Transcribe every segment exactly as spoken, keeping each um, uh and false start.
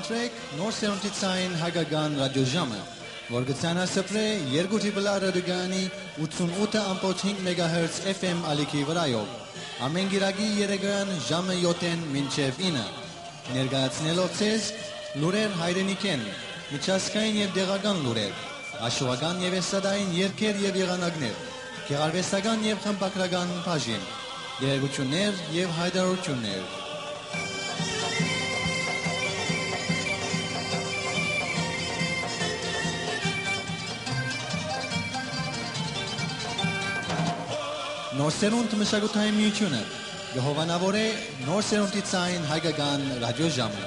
Սրեք Նոր Սերունդի Ցայն Հայկական Ռադիոժամը, որ կը ցանասփռէ երկու Տրիպլ Ա ռադիոկայանի ութսունութ ըմբոց հինգ մեգահերց F M ալիքի վրայով, ամէն կիրակի երեկոյեան ժամը յոթ մինչեւ ինը, ներկայացնելով ձեզ լուրեր հայրենիքէն, միջազգային եւ տեղական լուրեր, աշուական եւ էստրադային երգեր եւ եղանակներ, գեղարուեստական եւ խմբագրական բաժին, տեղեկութիւններ եւ յայտարարութիւններ։ Նոր Սերունդ մշակութային միութիւնը կը հովանաւորէ Նոր Սերունդի Ցայն Հայկական Ռադիոժամը։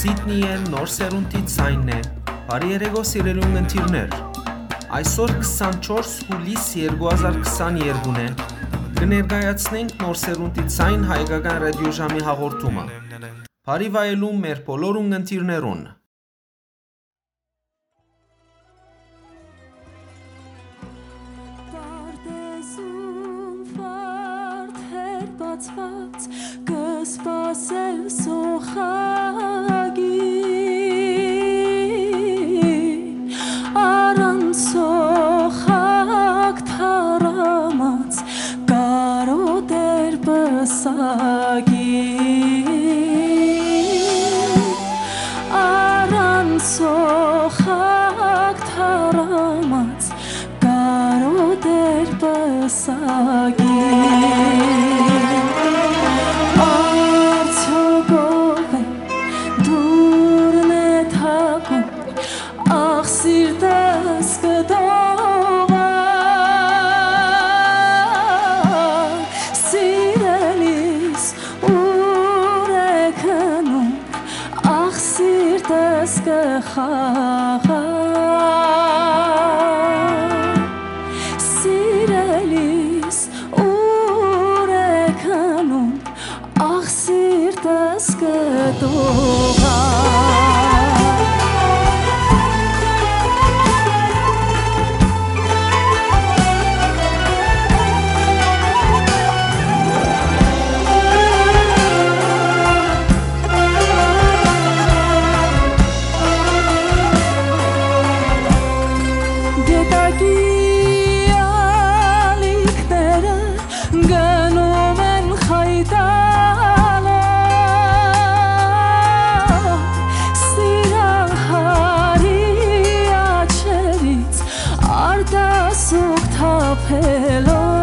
Սիդնիէն Նոր Սերունդի Ցայնն է։ Բարի երեկո, սիրելի ունգընտիրներ։ Այսօր քսանչորս հուլիս երկու հազար քսաներկուն է։ Կը ներկայացնենք Նոր Սերունդի Ցայն Հայկական Ռադիոժամի հաղորդումը։ Բարի վայելում մեր բոլոր ունգընտիրներուն։ Պարտեզում վարդեր բացված, կը սպասել սոխագին, առանց սոխակ թառամած, կարօտեր պսակին, առանց սոխակ թառամած, կարօտեր պսակին։ Կը խաղա, սիրելիս, ուր է քնում, ախ, սիրտս կը տողա։ Գետակի ալիքները գնում են խայտալով, սիրահարի աչքերից արտասուք թափելով,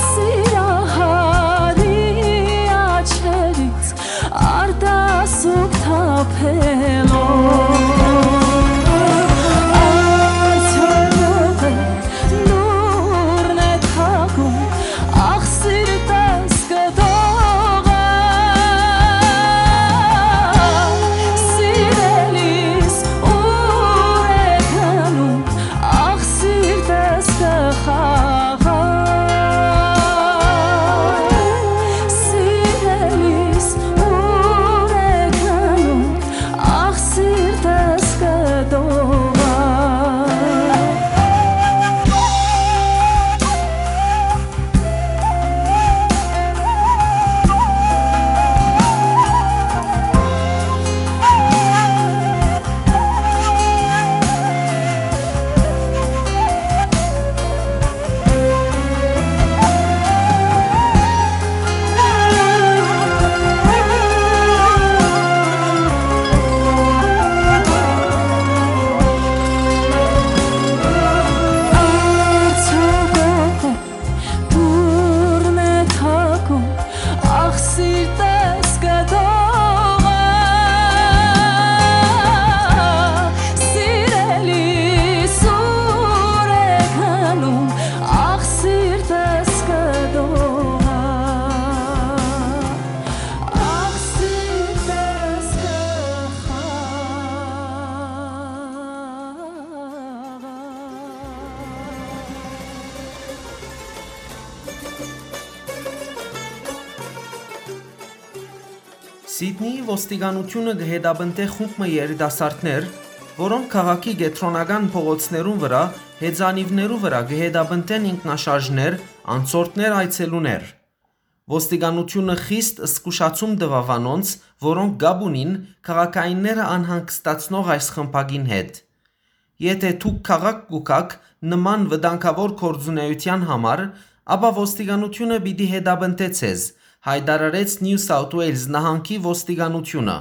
սիրահարի աչքերից արտասուք թափելով։ Արդյոք լուրն է թակում, ախ, սիրտս կը դողա, սիրելիս, ուր է գնում, ախ, սիրտս կը խաղա, սիրելիս, ուր է գնում, ախ, սիրտս կը դողա։ Դուռն է թակում, ախ, սիրտս կը դողա, սիրելի, սուր է գնում, ախ, սիրտս կը դողա, ախ, սիրտս կը խաղա։ Սիդնիի ոստիկանութիւնը կը հետապնդէ խումբ մը երիտասարդներ, որոնք քաղաքի կեդրոնական փողոցներուն վրայ, հեծանիւներու վրայ կը հետապնդեն ինքնաշարժներ, անցորդներ, այցելուներ։ Ոստիկանութիւնը խիստ զգուշացում տուաւ անոնց, որոնք կապ ունին քաղաքայինները անհանգստացնող այս խմբակին հետ։ Եթէ դուք քաղաք կու գաք նման վտանգաւոր գործունէութեան համար, ապա ոստիկանութիւնը պիտի հետապնդէ ձեզ, յայտարարեց New South Wales նահանգի ոստիկանութիւնը։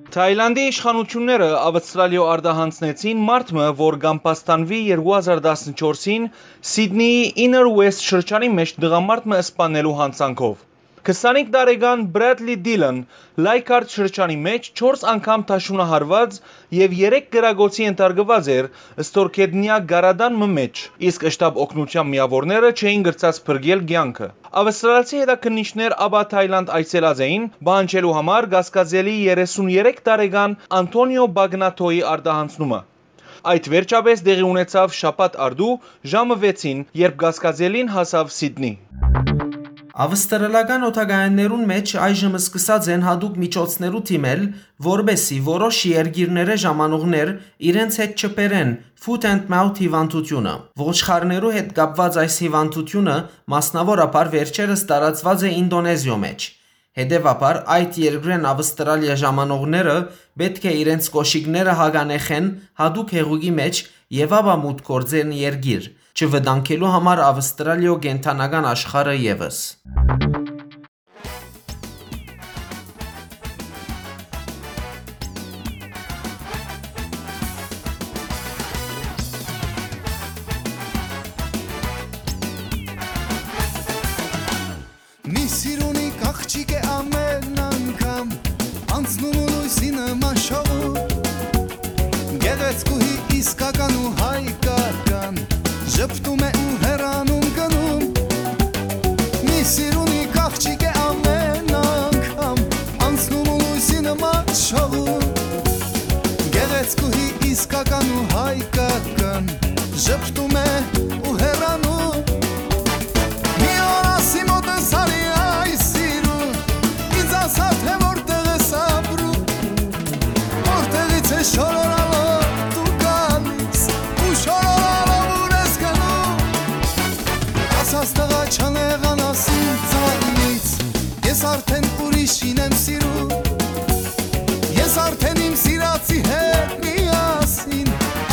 Թայլանդի իշխանութիւնները Աւստրալիոյ արտահանձնեցին մարդ մը, որ կ'ամբաստանուի երկու հազար տասնչորսին Սիդնիի Inner West շրջանի մէջ տղամարդ մը սպանելու յանցանքով։ Քսանհինգ տարեկան Բրատլի Դիլան Լայքարդ շրջանի մէջ չորս անգամ դաշունահարուած եւ երեք կրակոցի ենթարկուած էր ստորգետնեայ կարատան մը մէջ, իսկ շտապ օգնութեան միաւորները չէին կրցած փրկել կեանքը։ Աւստրալցի հետաքննիչներ ապա Թայլանդ այցելած էին՝ պահանջելու համար կասկածելի երեսուն երեք տարեկան Անթոնիո Բագնաթոյի արտահանձնումը։ Այդ վերջապէս տեղի ունեցաւ շաբաթ առտու ժամը վեցին, երբ կասկածելին հասաւ Սիդնի։ Աւստրալական օդակայաններուն մէջ այժմ սկսած են յատուկ միջոցներու դիմել, որպէսզի որոշ երկիրներէ ժամանողներ իրենց հետ չբերեն foot and mouth հիւանդութիւնը։ Ոչխարներու հետ կապուած այս հիւանդութիւնը մասնաւորաբար վերջերս տարածուած է Ինտոնեզիոյ մէջ։ Հետեւաբար, այդ երկրէն Աւստրալիա ժամանողները պէտք է իրենց կոշիկները հագանեխեն յատուկ հեղուկի մէջ եւ ապա մուտք գործեն երկիր, չվտանգելու համար Աւստրալիոյ կենդանական աշխարհը եւս։ Մի սիրունի կաղջիկ է ամեն անգամ անցնում ու լույսի նման շողում։ Գեղեցկուհի իսկական ու հայկական ժպտում է ու հեռանում գնում։ Մի սիրունի կաղջիկ է ամեն անգամ անցնում ու լույսի Ժպտում է ու հեռանում։ Մի օր ասի մոտս արի այս սիրուն, ինձ ասա, թե որտեղ ես ապրում, որտեղից ես շորորալով դու գալիս, ու շորորալով ուր ես գնում։ Ասած տղա, չանեղանաս ինձանից, ես արդեն ուրիշին եմ սիրում։ Ես արդեն իմ սիրածի հետ միասին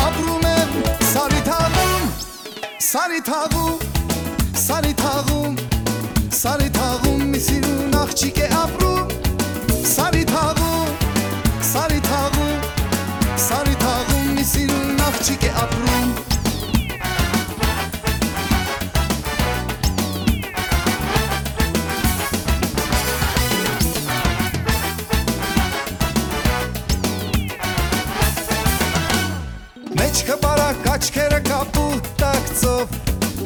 ապրում եմ Սարի թաղում, Սարի թաղում, Սարի թաղում, Սարի թաղում մի սիրուն աղջիկ է ապրում։ Սարի թաղում, Սարի թաղում, Սարի թաղում մի սիրուն աղջիկ է ապրում։ Մեջքը բարակ, աչքերը կապուտ տակցով,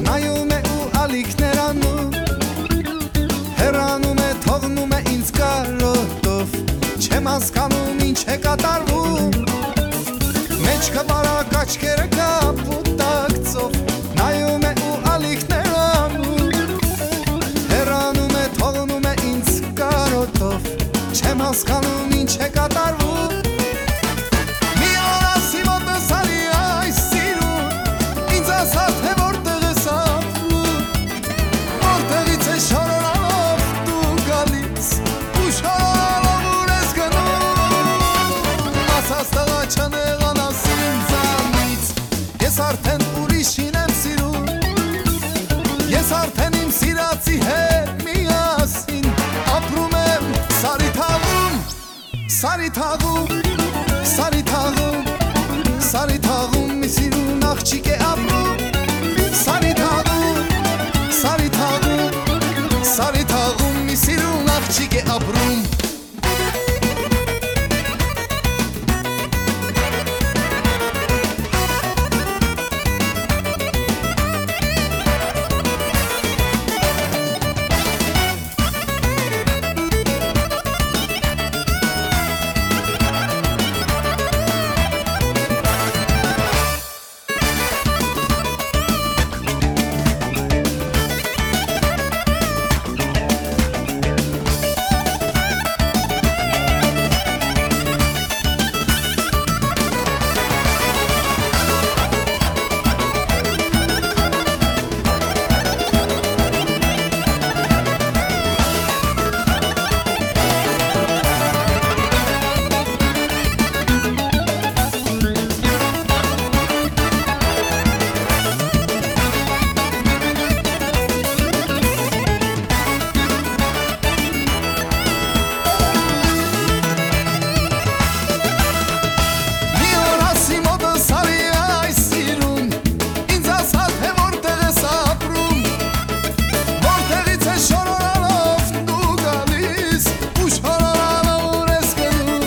նայում է ու ալիքներ անում, հեռանում է, թողնում է ինձ կարոտով, չեմ հասկանում ինչ է կատարվում։ Մեջքը բարակ, աչքերը կապուտ տակցով, նայում է ու ալիքներ անում, հեռանում է, թողնում է ինձ կարոտով, չեմ հասկանում ինչ է կատարվում։ Մի օր ասի մոտս արի այս սիրուն, ինձ ասա, թե որտեղ ես ապրում, որտեղից ես շորորալով դու գալիս, ու շորորալով ուր ես գնում։ Ասած տղա, չանեղանաս ինձանից, ես արդեն ուրիշին եմ սիրում, ես արդեն իմ սիրածի հետ միասին ապրում եմ Սարի թաղում, Սարի թաղում, Սարի թաղում, Սարի թաղում մի սիրուն աղջիկ է ապրում։ Սարի թաղում, Սարի թաղում, Սարի թաղում մի սիրուն աղջիկ է ապրում։ Մի օր ասի մոտս արի այս սիրուն, ինձ ասա, թե որտեղ ես ապրում, որտեղից ես շորորանով դու գալիս, ու շորորանով ուր ես գնում։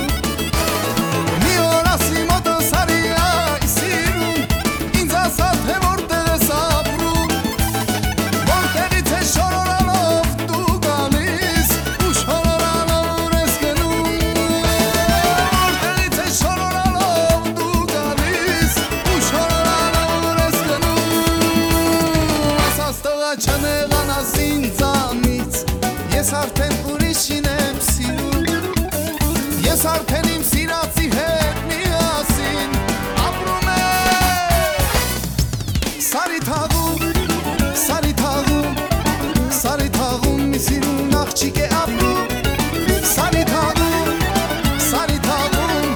Մի օր ասի մոտս արի այս սիրուն, ինձ ասա, թե որտեղ ես ապրում, որտեղից ես շորորանով դու գալիս, ու շորորանով ուր ես գնում, որտեղից ես շորորանով դու գալիս, ու շորորանով ուր ես գնում։ Ասած տղա, չանեղանաս ինձանից, ես արդեն ուրիշին եմ սիրում, ես արդեն իմ սիրածի հետ միասին ապրում եմ։ Սարի թաղում, Սարի թաղում, Սարի թաղում մի սիրուն աղջիկ է ապրում։ Սարի թաղում, Սարի թաղում,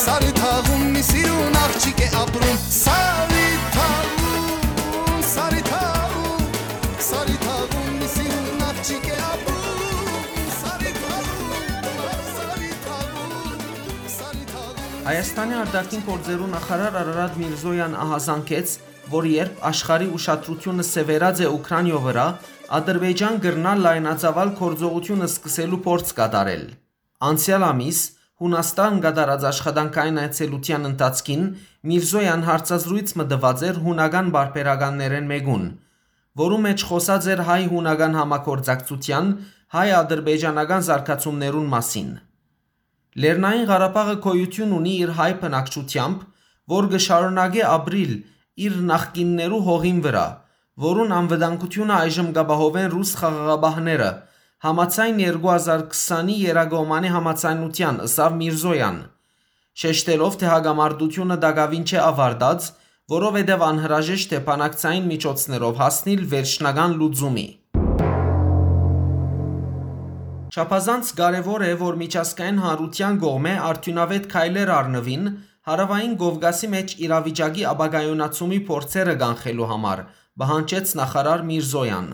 Սարի թաղում մի սիրուն աղջիկ է ապրում։ Սարի թաղում, Սարի թաղում, Սարի թաղում մի սիրուն աղջիկ է ապրում։ Սարի թաղում, Սարի թաղում, Սարի թաղում։ Հայաստանի արտաքին գործերու նախարար Արարատ Միրզոյան ահազանգեց, որ երբ աշխարհի ուշադրությունը սեւեռած է Ուքրանիոյ վրայ, Ադրբեջան կրնայ լայնածաւալ գործողութիւն սկսելու փորձ կատարել։ Անցեալ ամիս Յունաստան կատարած աշխատանքային այցելութեան ընթացքին Միրզոյան հարցազրոյց մը տուած էր յունական պարբերականներէն մէկուն, որու մէջ խօսած էր հայ-յունական համագործակցութեան, հայ-ադրբեջանական զարգացումներուն մասին։ Լեռնային Ղարաբաղը գոյութիւն ունի իր հայ բնակչութեամբ, որ կը շարունակէ ապրիլ իր նախկիններու հողին վրայ, որուն անվտանգութիւնը այժմ կ'ապահովեն ռուս խաղաղապահները, համաձայն երկու հազար քսանի Եռակողմանի համաձայնութեան, ըսաւ Միրզոյան, շեշտելով, թէ հակամարտությունը տակաւին չէ աւարտած, որովհետեւ անհրաժեշտ է բանակցային միջոցներով հասնիլ վերջնական լուծումի։ Չափազանց կարեւոր է, որ միջազգային հանրութեան կողմէ արդիւնաւէտ քայլեր առնուին Հարաւային Կովկասի մէջ իրավիճակի ապակայունացումի փորձերը կանխելու համար, պահանջեց նախարար Միրզոյան։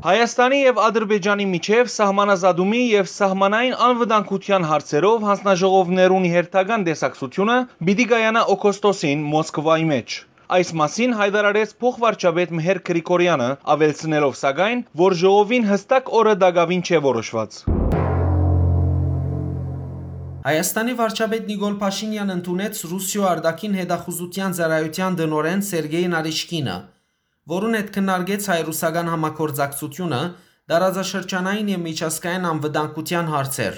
Հայաստանի եւ Ադրբեջանի միջեւ սահմանազատումի եւ սահմանային անվտանգութեան հարցերով յանձնաժողովներուն հերթական տեսակցութիւնը պիտի կայանայ օգոստոսին Մոսկվայի մէջ։ Այս մասին յայտարարեց փոխվարչապետ Մհեր Գրիգորյանը, աւելցնելով, սակայն, որ ժողովին յստակ օրը տակաւին չէ որոշուած։ Հայաստանի վարչապետ Նիկոլ Փաշինեան ընդունեց Ռուսիոյ արտաքին հետախուզութեան ծառայութեան տնօրէն Սերգեյ Նարիշկինը, որուն հետ քննարկեց հայ-ռուսական համագործակցութիւնը, տարածաշրջանային եւ միջազգային անվտանգութեան հարցեր։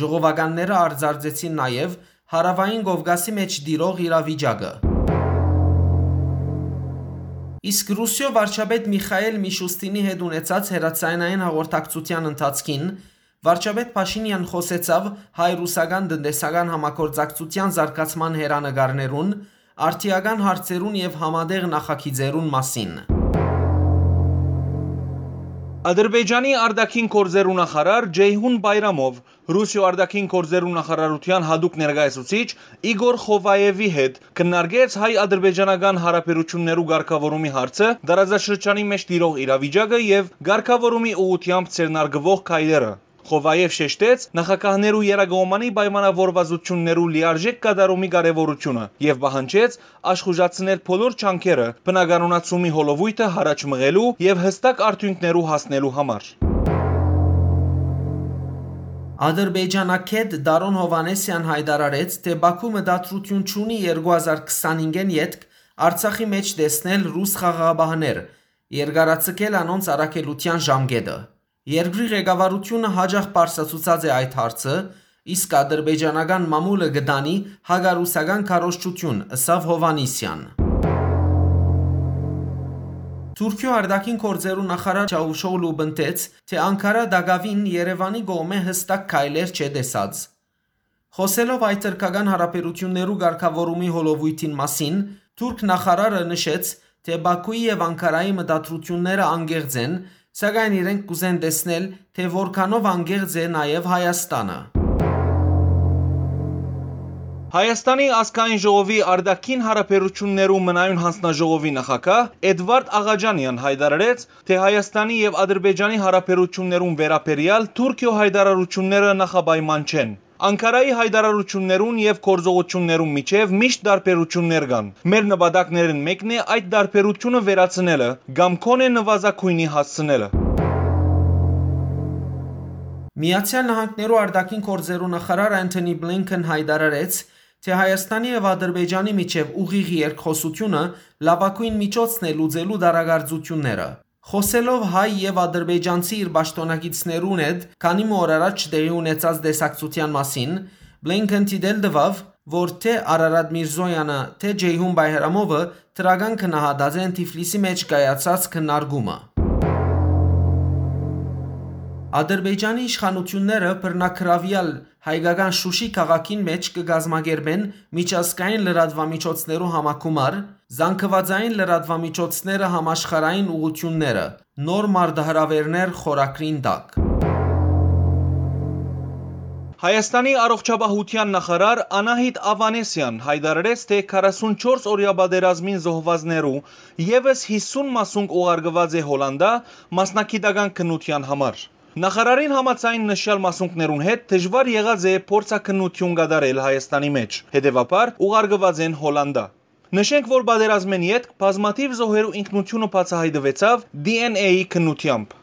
Ժողովականները արձանագրեցին նաեւ Հարաւային Կովկասի մէջ տիրող իրավիճակը։ Իսկ Ռուսիոյ վարչապետ Միխայել Միշուստինի հետ ունեցած հեռաձայնային հաղորդակցութեան ընթացքին վարչապետ Փաշինեան խօսեցաւ հայ-ռուսական տնտեսական համագործակցութեան զարգացման հեռանկարներուն, արդիական հարցերուն եւ համատեղ նախագիծերուն մասին։ Ադրբեջանի արտաքին գործերու նախարար Ջեյհուն Բայրամով Ռուսիոյ արտաքին գործերու նախարարութեան յատուկ ներկայացուցիչ Իգոր Խովաևի հետ քննարկեց հայ-ադրբեջանական յարաբերութիւններու կարգաւորումի հարցը, տարածաշրջանի մէջ տիրող իրավիճակը եւ կարգաւորումի ուղղութեամբ ձեռնարկուող քայլերը։ Խովաեւ շեշտեց նախագահներու եռակողմանի պայմանաւորվածութիւններու լիարժէք կատարումի կարեւորութիւնը եւ պահանջեց աշխուժացնել բոլոր ջանքերը բնականոնացումի հոլովոյթը յառաջ մղելու եւ յստակ արդիւնքներու հասնելու համար։ Ադրբեջանագէտ Դարոն Հովհաննիսեան յայտարարեց, թէ Բաքու մտադրութիւն չունի երկու հազար քսանհինգէն ետք Արցախի մէջ տեսնել ռուս խաղաղապահներ, երկարաձգել անոնց առաքելութեան ժամկէտը։ Երկրի ղեկավարութիւնը յաճախ պարզացուցած է այդ հարցը, իսկ ադրբեջանական մամուլը կը տանի հակառուսական քարոզչութիւն, ըսաւ Հովհաննիսեան։ Թուրքիոյ արտաքին գործերու նախարար Չավուշօղլու պնդեց, թէ Անկարա տակաւին Երեւանի կողմէ յստակ քայլեր չէ տեսած։ Խօսելով այդ թրքական յարաբերութիւններու կարգաւորումի հոլովոյթին մասին, թուրք նախարարը նշեց, թէ Բաքուի եւ Անկարայի մտադրութիւնները անկեղծ են, սակայն իրենք կ'ուզեն տեսնել, թէ որքանով անկեղծ է նաեւ Հայաստանը։ Հայաստանի ազգային ժողովի արտաքին յարաբերութիւններու մնայուն յանձնաժողովի նախագահ Էդվարդ Աղաջանեան յայտարարեց, թէ Հայաստանի եւ Ադրբեջանի յարաբերութիւններուն վերաբերեալ Թուրքիոյ յայտարարութիւնները նախապայման չեն։ Անկարայի յայտարարութիւններուն եւ գործողութիւններուն միջեւ միշտ տարբերութիւններ կան։ Մեր նպատակներէն մէկն է այդ տարբերութիւնը վերացնելը կամ գոնէ նուազագոյնի հասցնելը։ Միացեալ Նահանգներու արտաքին գործերու նախարար Անթոնի Բլինքեն յայտարարեց, թէ Հայաստանի եւ Ադրբեջանի միջեւ ուղիղ երկխօսութիւնը լաւագոյն միջոցն է լուծելու տարակարծութիւնները։ Խօսելով հայ եւ ադրբեջանցի իր պաշտօնակիցներուն հետ քանի մը օր առաջ տեղի ունեցած տեսակցութեան մասին, Բլինքեն դիտել տուաւ, որ թէ Արարատ Միրզոյանը, թէ Ջեյհուն Բայրամովը դրական գնահատած են Թիֆլիսի մէջ կայացած քննարկումը։ Ադրբեջանի իշխանութիւնները բռնագրաւեալ հայկական Շուշի քաղաքին մէջ կը կազմակերպեն միջազգային լրատուամիջոցներու համագումար, զանգվածային լրատուամիջոցները համաշխարհային ուղղութիւնները, նոր մարտահրաւէրներ խորագրին տակ։ Հայաստանի առողջապահութեան նախարար Անահիտ Ավանեսեան յայտարարեց, թէ քառասունչորս օրեայ պատերազմին զոհուածներու եւս յիսուն մասունք ուղարկուած է Հոլանտա մասնագիտական քննութեան համար։ Նախարարին համաձայն, նշեալ մասունքներուն հետ դժուար եղած է փորձաքննութիւն կատարել Հայաստանի մէջ, հետեւաբար ուղարկուած են Հոլանտա։ Նշենք, որ պատերազմէն ետք բազմաթիւ զոհերու ինքնութիւնը բացայայտուեցաւ D N A-ի քննութեամբ։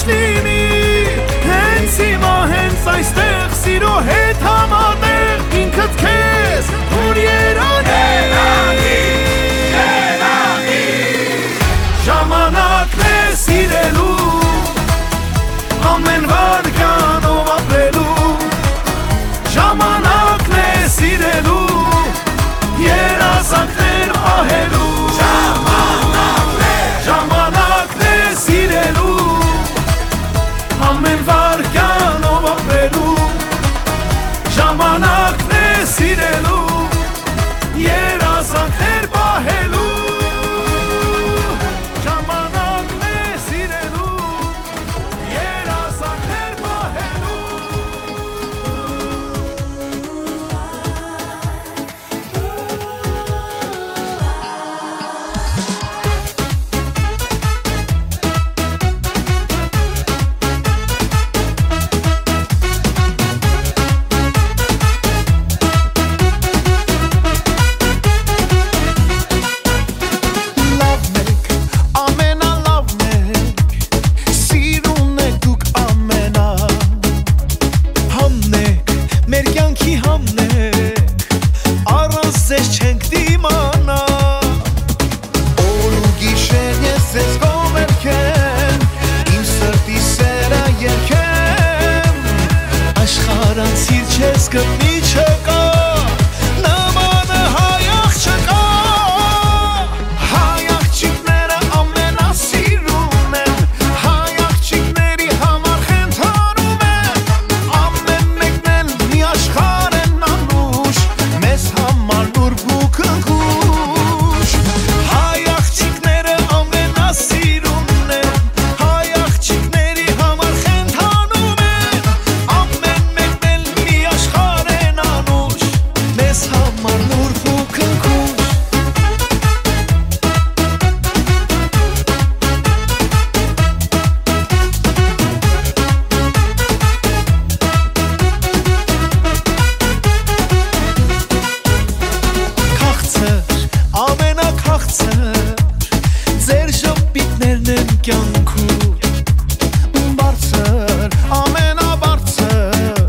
Նինի, հենց հիմա, հենց այստեղ, սիրո հետ համատեղ ինքդ քեզ թող երանի։ Ժամանակն է սիրելու, ամեն վարքյանով ապրելու։ Ժամանակն է սիրելու, երազանքներ պահելու։ Ժամանակն է, ժամանակն է սիրելու, ամեն վարքյանով ապրելու։ Ժամանակն է սիրելու, երազանքներ պահելու։ Ժամանակն է սիրելու, երազանքներ պահելու։ Լաւն եք, ամենալաւն եք, սիրուն եք դուք ամենա։ Համն եք, մեր կեանքի համն եք, առանց ձեզ չենք դիմանայ։ Օր ու գիշեր ես ձեզ կողմերքեմ, իմ սրտի սերը երգեմ, աշխարհ անցիր չես գտնի չկա, նմանը հայ աղջկա։ Հայ աղջիկները ամենասիրուն են, հայ աղջիկների համար խենթանում են, ամեն մեկն էլ մի աշխարհ են անուշ, մեզ համար նուրբ ու քնքուշ։ Հայ աղջիկները ամենասիրուն են, հայ աղջիկների համար խենթանում են, ամեն մեկն էլ մի աշխարհ են անուշ, մեզ համար նուրբ ու քնքուշ։ Քաղցր, ամենաքաղցր, ձեր ժպիտներն են կյանքում։ Բարձր, ամենաբարձր,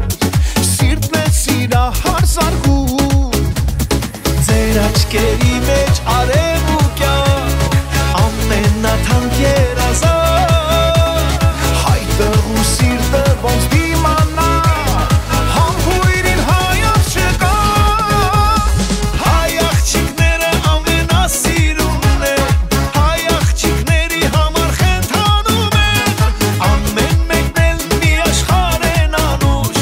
սիրտն է սիրահար զարկում։ Ձեր աչքերի մեջ արեւ ու կեանք, ամենաթանկ երազանք, հայ տղու սիրտը ոնց դիմանայ, համբոյրին հայ աղջկա։ Հայ աղջիկները ամենասիրուն են, հայ աղջիկների համար խենթանում են, ամեն մեկն էլ մի աշխարհ են անուշ,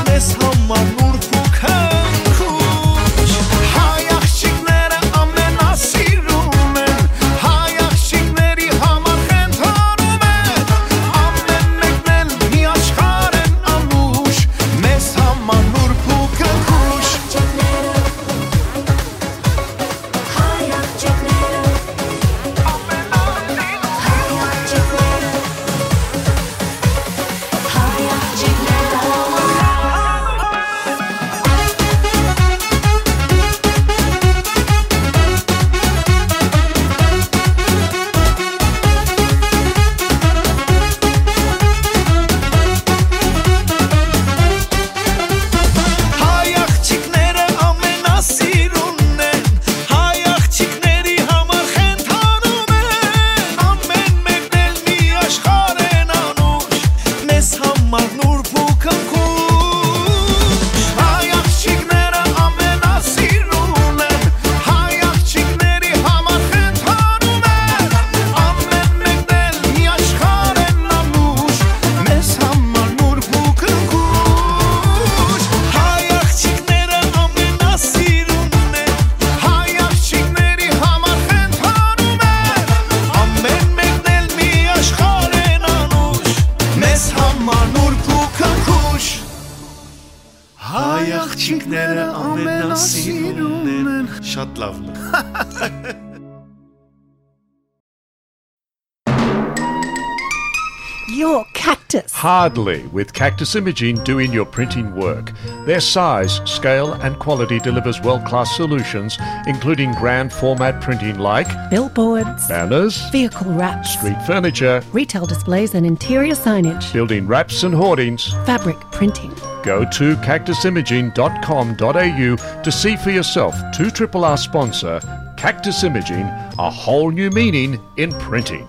մեզ համար նուրբ ու քնքուշ։ Հայ աղջիկները ամենասիրուն են, հայ աղջիկների համար խենթանում են, ամեն մեկն էլ մի աշխարհ են անուշ, մեզ համար նուրբ ու քնքուշ։ Հայ աղջիկները ամենասիրունն են, հայ աղջիկների համար խենթանում են, ամեն մեկն էլ մի աշխարհ են անուշ, մեզ համար նուրբ ու քնքուշ։ Հայ աղջիկները ամենասիրուն են, հայ աղջիկների համար խենթանում են, ամեն մեկն էլ մի աշխարհ են անուշ, մեզ համար նուրբ ու քնքուշ։ Հայ աղջիկները ամենասիրունն են, հայ աղջիկների համար խենթանում են, ամեն մեկն էլ մի աշխարհ են անուշ, մեզ համար նուրբ ու քնքուշ։ Հայ աղջիկները ամենասիրունն են։ Շատ լաւն է։ Your Cactus. Hardly, with Cactus Imaging doing your printing work. Their size, scale, and quality delivers world-class solutions, including grand format printing like billboards, banners, vehicle wraps, street furniture, retail displays and interior signage, building wraps and hoardings, fabric printing. Go to cactus imaging dot com dot a u to see for yourself two triple R sponsor Cactus Imaging, a whole new meaning in printing.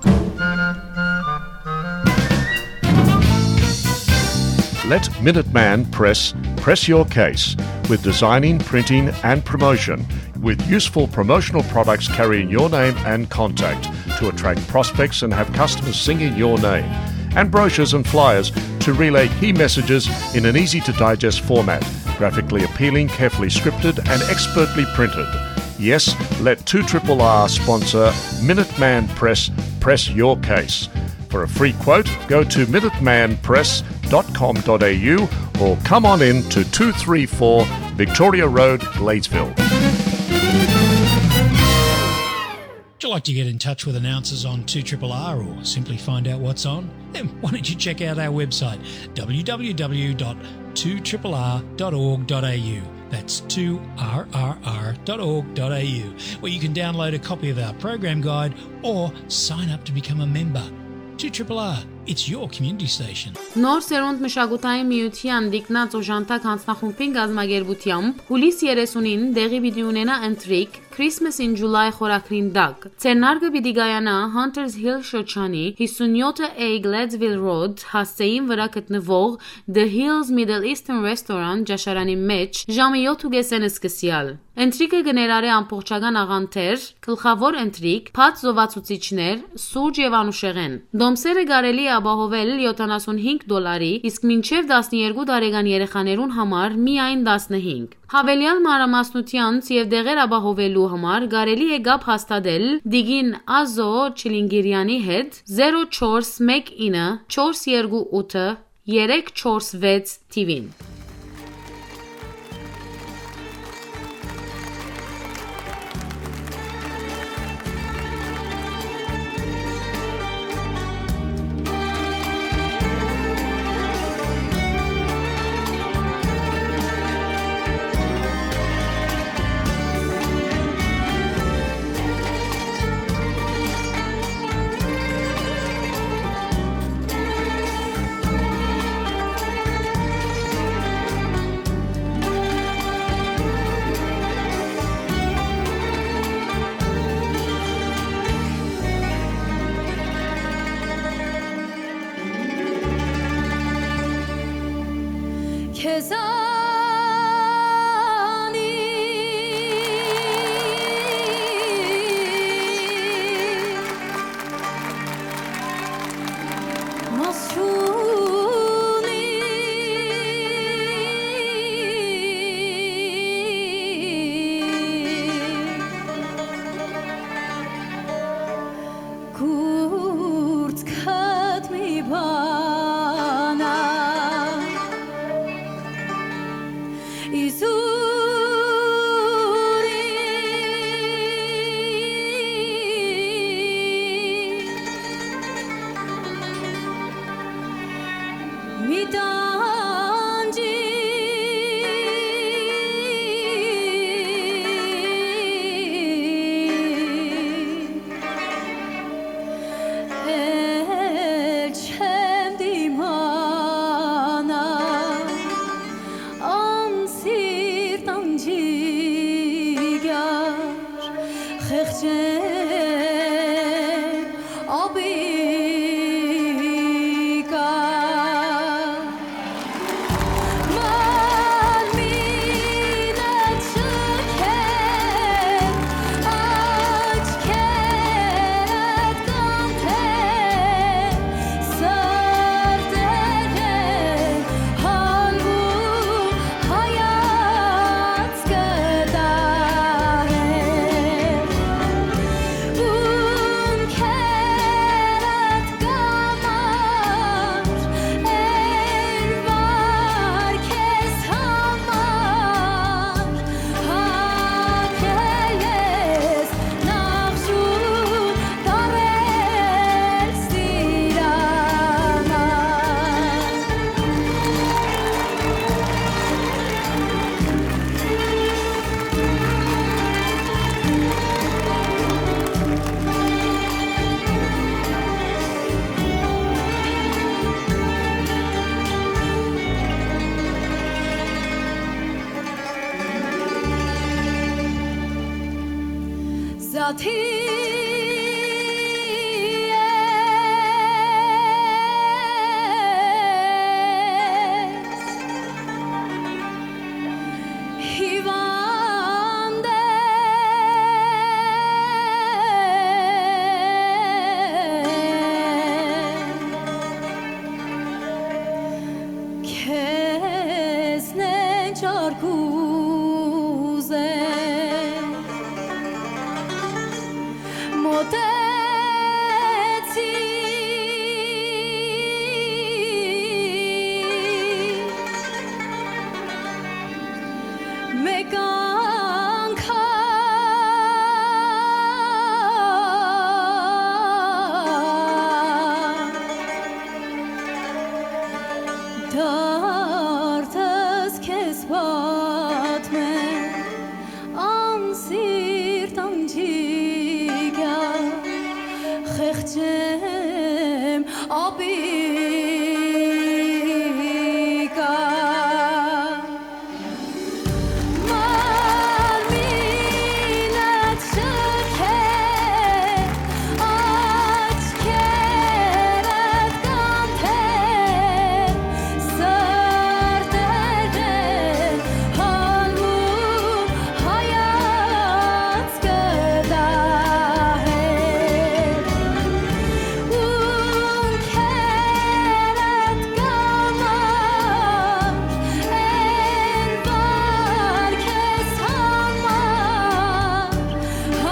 Let Minuteman Press press your case with designing, printing, and promotion, with useful promotional products carrying your name and contact to attract prospects and have customers singing your name, and brochures and flyers to relay key messages in an easy to digest format, graphically appealing, carefully scripted, and expertly printed. Yes, let two triple R sponsor Minuteman Press press your case. For a free quote, go to minuteman press dot com dot a u or come on in to two three four Victoria Road, Gladesville. Would you like to get in touch with announcers on two triple R or simply find out what's on? Then why don't you check out our website, w w w dot two triple r dot org dot a u. That's two r r r dot org dot a u, where you can download a copy of our program guide or sign up to become a member. two triple R, it's your community station. Նոր սերունդ մշակութային միութեան Տիկնած օժանդակ յանձնախումբին կազմակերպութեամբ հուլիս երեսունին տեղի պիտի ունենայ ընթրիք Christmas in July խորագրին տակ։ Ձեռնարկը պիտի կայանայ Hunters Hill շրջանի հիսունյոթ A Gladesville Road հասցէին վրայ գտնուող The Hills Middle Eastern Restaurant ճաշարանի մէջ ժամը յոթ ու կեսէն սկսեալ։ Ընթրիքը կը ներառէ ամբողջական աղանդեր, գլխաւոր ընթրիք, բաց զովացուցիչներ, սուրճ եւ անուշեղէն։ Տոմսերը կարելի է ապահովել յոթանասունհինգ դոլարի, իսկ մինչեւ տասներկու տարեկան երեխաներուն համար միայն տասնհինգ։ Յաւելեալ մանրամասնութեանց եւ տեղեր ապահովելու համար կարելի է կապ հաստատել տիկին Ազո Չիլինգիրյանի հետ, զերո չորս մէկ ինը չորս երկու ութը երեք չորս վեց թիվին։ Քեզնեն չար կուզեմ, մոտեցի, մէկ անգամ դարձս քեզ պատմեմ, անսիրտ անջիկա, խեղճեմ ապիկա։ Մարմինդ շքե, աչքերդ կանթե, սրտերդ ալմու հայացքը դահե։ Ունքերդ կամար, են վար քեզ համար,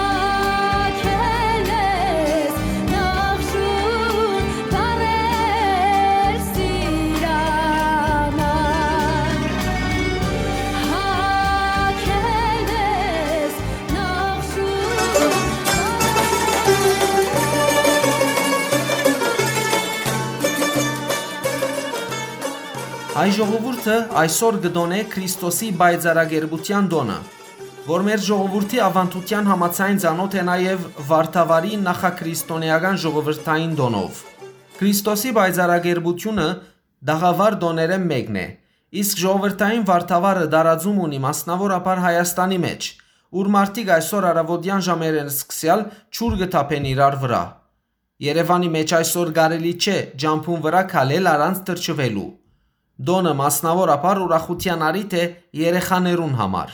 հագել ես նախշուն տարեր սիրամար, հագել ես Հայ ժողովուրդը այսօր կը տոնէ Քրիստոսի պայծառակերպութեան տօնը, որ մեր ժողովուրդի աւանդութեան համաձայն ծանօթ է նաեւ Վարդավառի նախաքրիստոնէական ժողովրդային տօնով։ Քրիստոսի պայծառակերպութիւնը տաղաւար տօներէն մէկն է, իսկ ժողովրդային Վարդավառը տարածում ունի մասնաւորաբար Հայաստանի մէջ, ուր մարդիկ այսօր առաւօտեան ժամերէն սկսեալ ջուր կը թափեն իրար վրայ։ Երեւանի մէջ այսօր կարելի չէ ճամբուն վրայ քալել առանց թռչուելու։ Տօնը մասնաւորաբար ուրախութեան առիթ է երեխաներուն համար։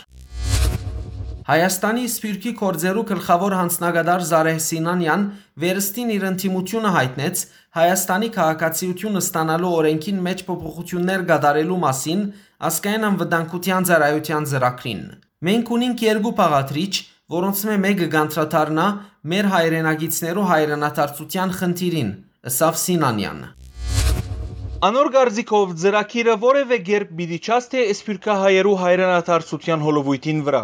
Հայաստանի Սփիւռքի գործերու գլխաւոր յանձնակատար Զարեհ Սինանեան վերստին իր ընդդիմութիւնը յայտնեց Հայաստանի քաղաքացիութիւն ստանալու օրէնքին մէջ փոփոխութիւններ կատարելու մասին Ազգային անվտանգութեան ծառայութեան ծրագրին։ «Մենք ունինք երկու բաղադրիչ, որոնցմէ մէկը կանդրադառնայ մեր հայրենակիցներու հայրենադարձութեան խնդիրին», ըսաւ Սինանեան։ Անոր կարծիքով, ծրագիրը որեւէ կերպ պիտի չասթէ սփիւռքահայերու հայրենադարձութեան հոլովոյթին վրայ։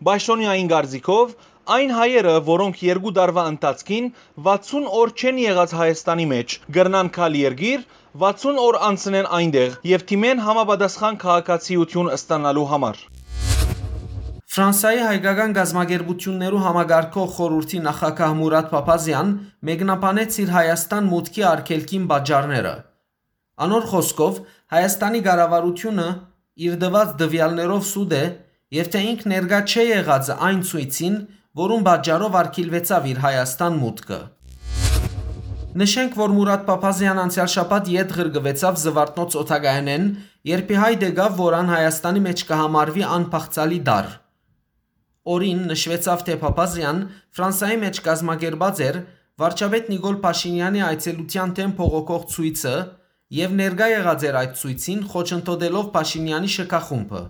Պաշտօնեային կարծիքով, այն հայերը, որոնք երկու տարուայ ընթացքին վաթսուն օր չեն եղած Հայաստանի մէջ, կրնան գալ երկիր, վաթսուն օր անցնեն այնտեղ եւ դիմեն համապատասխան քաղաքացիութիւն ստանալու համար։ Ֆրանսայի հայկական կազմակերպութիւններու համակարգող խորհուրդի նախագահ Մուրատ Փափազեան մեկնաբանեց իր Հայաստան մուտքի արգելքին պատճառները։ Անոր խօսքով, Հայաստանի կառավարութիւնը իր տուած տուեալներով սուտ է եւ թէ ինք ներկայ չէ եղածը այն ցոյցին, որուն պատճառով արգիլուեցաւ իր Հայաստան մուտքը։ Նշենք, որ Մուրատ Փափազեան անցեալ շաբաթ ետ ղրկուեցաւ Զուարթնոց օդակայանէն, երբ ի հայտ եկաւ, որ ան Հայաստանի մէջ կը համարուի անբաղձալի տարր։ Օրին նշուեցաւ, թէ Փափազեան Ֆրանսայի մէջ կազմակերպած էր վարչապետ Նիկոլ Փաշինեանի այցելութեան դէմ բողոքող ցոյցը եւ ներկայ եղած էր այդ ցոյցին՝ խոչընդոտելով Փաշինեանի շքախումբը։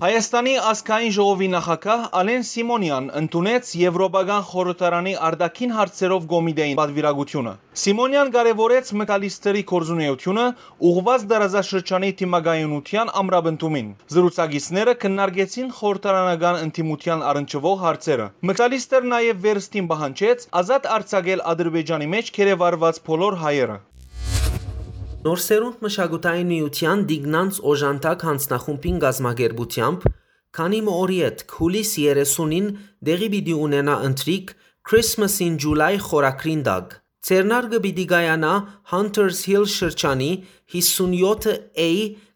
Հայաստանի ազգային ժողովի նախագահ Ալեն Սիմոնեան ընդունեց Եվրոպական խորհրդարանի արտաքին հարցերով կոմիտեին պատվիրակութիւնը։ Սիմոնեան կարեւորեց Մքալիստրի գործունէութիւնը՝ ուղղուած տարածաշրջանի դիմակայունութեան ամրապնդումին։ Զրուցակիցները քննարկեցին խորհրդարանական ընդդիմութեան առնչուող հարցերը։ Մքալիստր նաեւ վերստին պահանջեց ազատ արձակել Ադրբեջանի մէջ գերեվարուած բոլոր հայերը։ Նոր սերունդ մշակութային միութեան Տիկնանց օժանդակ յանձնախումբին կազմակերպութեամբ քանի մը օր ետք, յուլիս երեսունին, տեղի պիտի ունենայ ընթրիք Christmas in July խորագրին տակ։ Ձեռնարկը պիտի կայանայ Hunters Hill շրջանի հիսունյոթ A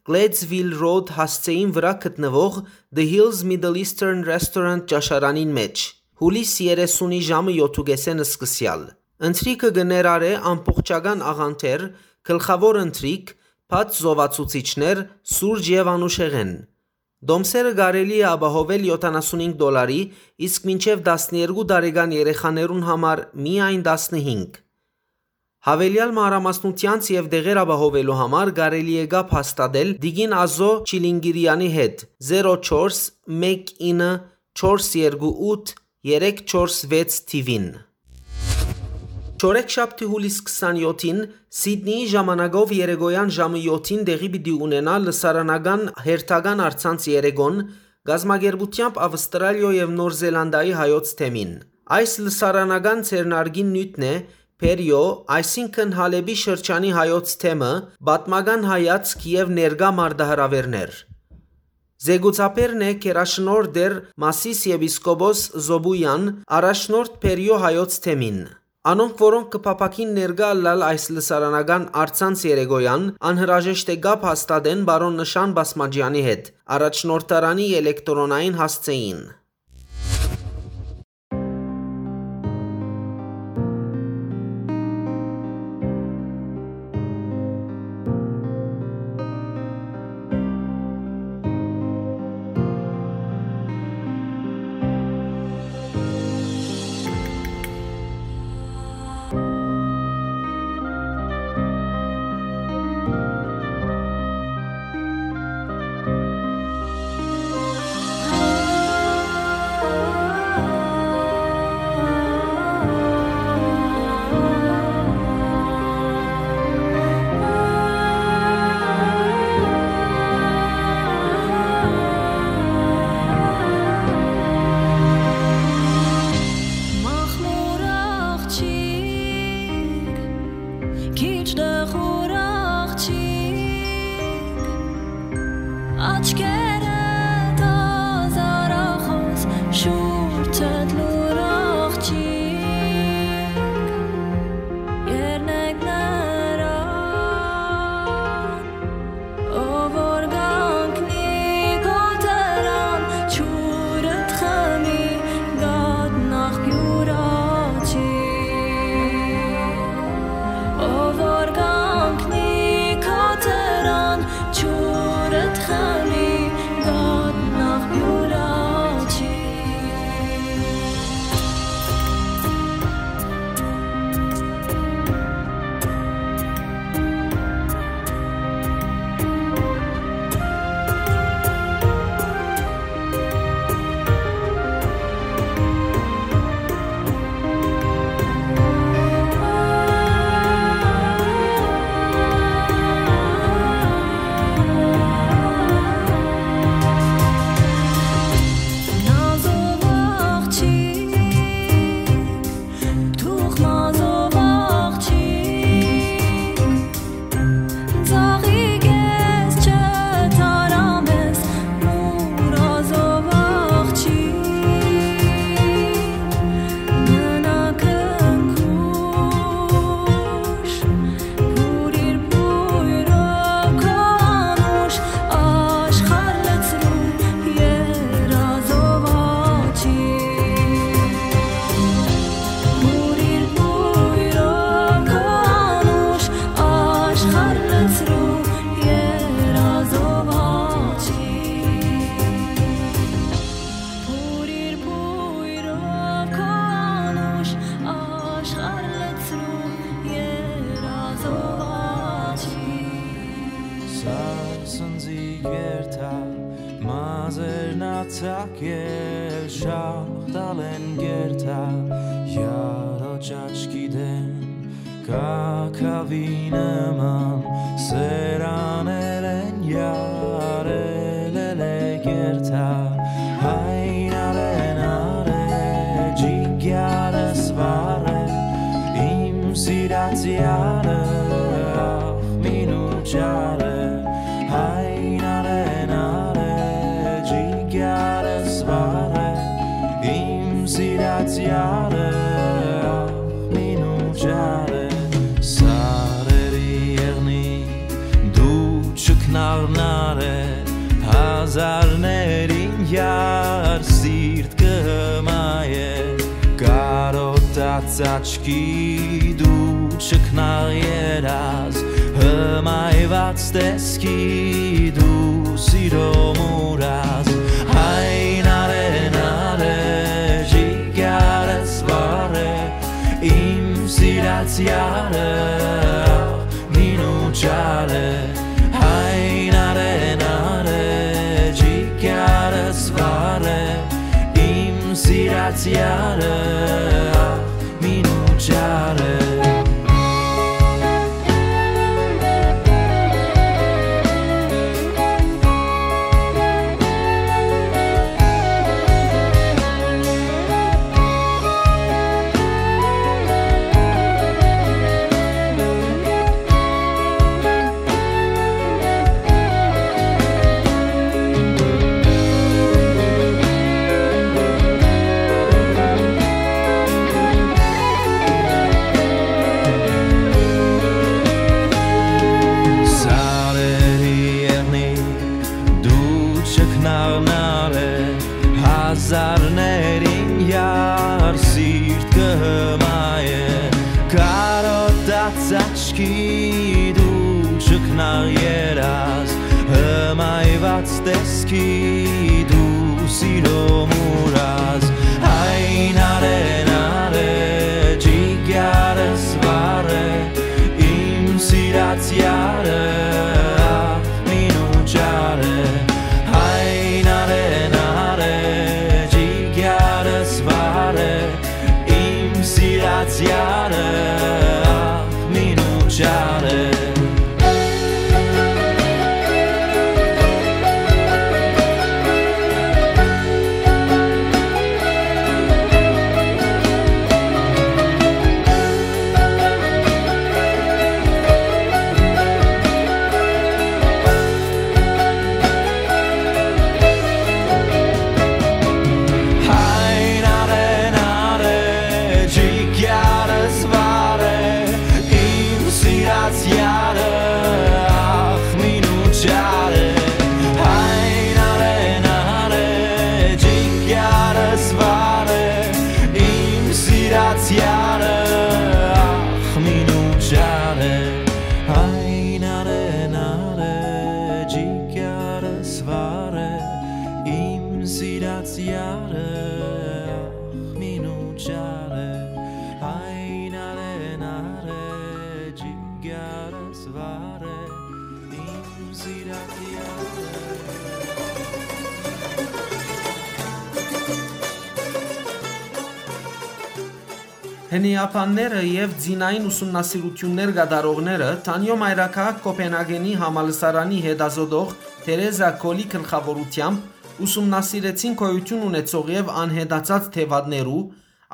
Gladesville Road հասցէին վրայ գտնուող The Hills Middle Eastern Restaurant ճաշարանին մէջ։ Յուլիս երեսունի ժամը յոթ ու կէսէն սկսեալ։ Ընթրիքը կը ներառէ ամբողջական աղանդեր, գլխաւոր ընթրիք, բաց զովացուցիչներ, սուրճ եւ անուշեղէն։ Տոմսերը կարելի է ապահովել յոթանասունհինգ դոլարի, իսկ մինչեւ տասներկու տարեկան երեխաներուն համար միայն տասնհինգ։ Havelial մանրամասնութեանց եւ տեղեր ապահովելու համար կարելի է կապ հաստատել տիկին Ազո Չիլինկիրեանի հետ, զերո չորս մէկ ինը չորս երեք չորս վեց թիւին։ Չորեքշաբթի, յուլիս քսանյոթին, Սիդնիի ժամանակով երեկոյան ժամը յոթին տեղի պիտի ունենայ լսարանական հերթական առցանց երեկոն, կազմակերպութեամբ Ավստրալիոյ եւ Նոր Զելանդիայի հայոց թեմին։ Այս լսարանական ձեռնարկին նիւթն է Փերիո, այսինքն Հալէպի շրջանի հայոց թեմը, պատմական հայացք եւ ներկայ մարտահրաւէրներ։ Զեկուցաբերն է գերաշնորհ տէր Մասիս եպիսկոպոս Զոբուեան, առաջնորդ Փերիո հայոց թեմին։ Անոնք, որոնք կը փափաքին ներկայ ըլլալ այս լսարանական առցանց երեկոյան, անհրաժեշտ է կապ հաստատեն պարոն Նշան Բասմաջեանի հետ, առաջնորդարանի ելեկտրոնային հասցէին։ Մախմուր աղջիկ, քիչ դխուր աղջիկ, աչքերդ ազարախոս, շուրջդ լուր աղջիկ, երնեք նրան, ով որ կանգնի քո դրան, ջուրդ խմի, կատնախ յուր աջի։ Ով որ կանգնի քո դրան, ջուրդ խմի, կատնախ յուր աջի։ Նազով աղջիկ, թուղ մազով աղջիկ, ծաղիկ ես չթարամ ես, մուրազով աղջիկ, մնա քնքուշ, բուրիր բոյրով քո անուշ, աշխարհ լցրու երազով աջի։ Մուրիր բոյրով քո անուշ, աշխարհ լցրու երազով աջի։ Մուրիր բոյրով քո անուշ, աշխարհ լցրու երազով աջի։ Սարսնձի գերթա, մազերնացակ ել շաղ տալեն գերթա, յարոճ աչքի դեն, կակավի նման սերաներ են, յարել ել է գերթա, այն արեն արե, ջիգյարս վառ է, իմ սիրած յարը, ախ, մինու ճարը, այն արեն արե, ջիգյարս վառ է, իմ սիրած յարը, ախ, մինու ճարը, սարերի եղնի, դու չքնաղնար է, հազարներին յար սիրտ կը հմայ է, Աչքիդ ու չքնաղ երազ, հմայված տեսքիդ ու սիրո մուրազ, այն արեն արեջի գարս վարե, իմ սիրած յարը, մինու չարը, այն արեն արեջի գարս վարե, իմ սիրած յարը, մինու չարը։ Սարերի եղնիկ դու չքնաղնալը, հազարներին յար սիրտ կը հմայէ, կարոտած աչքիդ ու չքնաղ երազ, հմայված տեսքիդ ու սիրո մուրազ, այն արեն արեջի գարս վարե, իմ սիրած յարը, մինու չարը, այն արեն արեջի գարս վարե, իմ սիրած յարը, մինու չարը։ Այն արեն արեջի գարս վարե, իմ սիրած յարը, ախ, մինու չարը, այն արեն արեջի գարս վարե, իմ սիրած յարը, ախ, մինու չարը, այն արեն արեջի գարս վարե, իմ սիրած յարը, ախ, մինու չարը, այն արեն արեջի գարս վարե, իմ սիրած յարը։ Հնեաբանները եւ ձինային ուսումնասիրութիւններ կատարողները Թանիոյ մայրաքաղաք Կոպենհագենի համալսարանի հետազօտող Թերեզա Քոլի գլխաւորութեամբ ուսումնասիրեցին գոյութիւն ունեցող եւ անհետացած թեւատներու,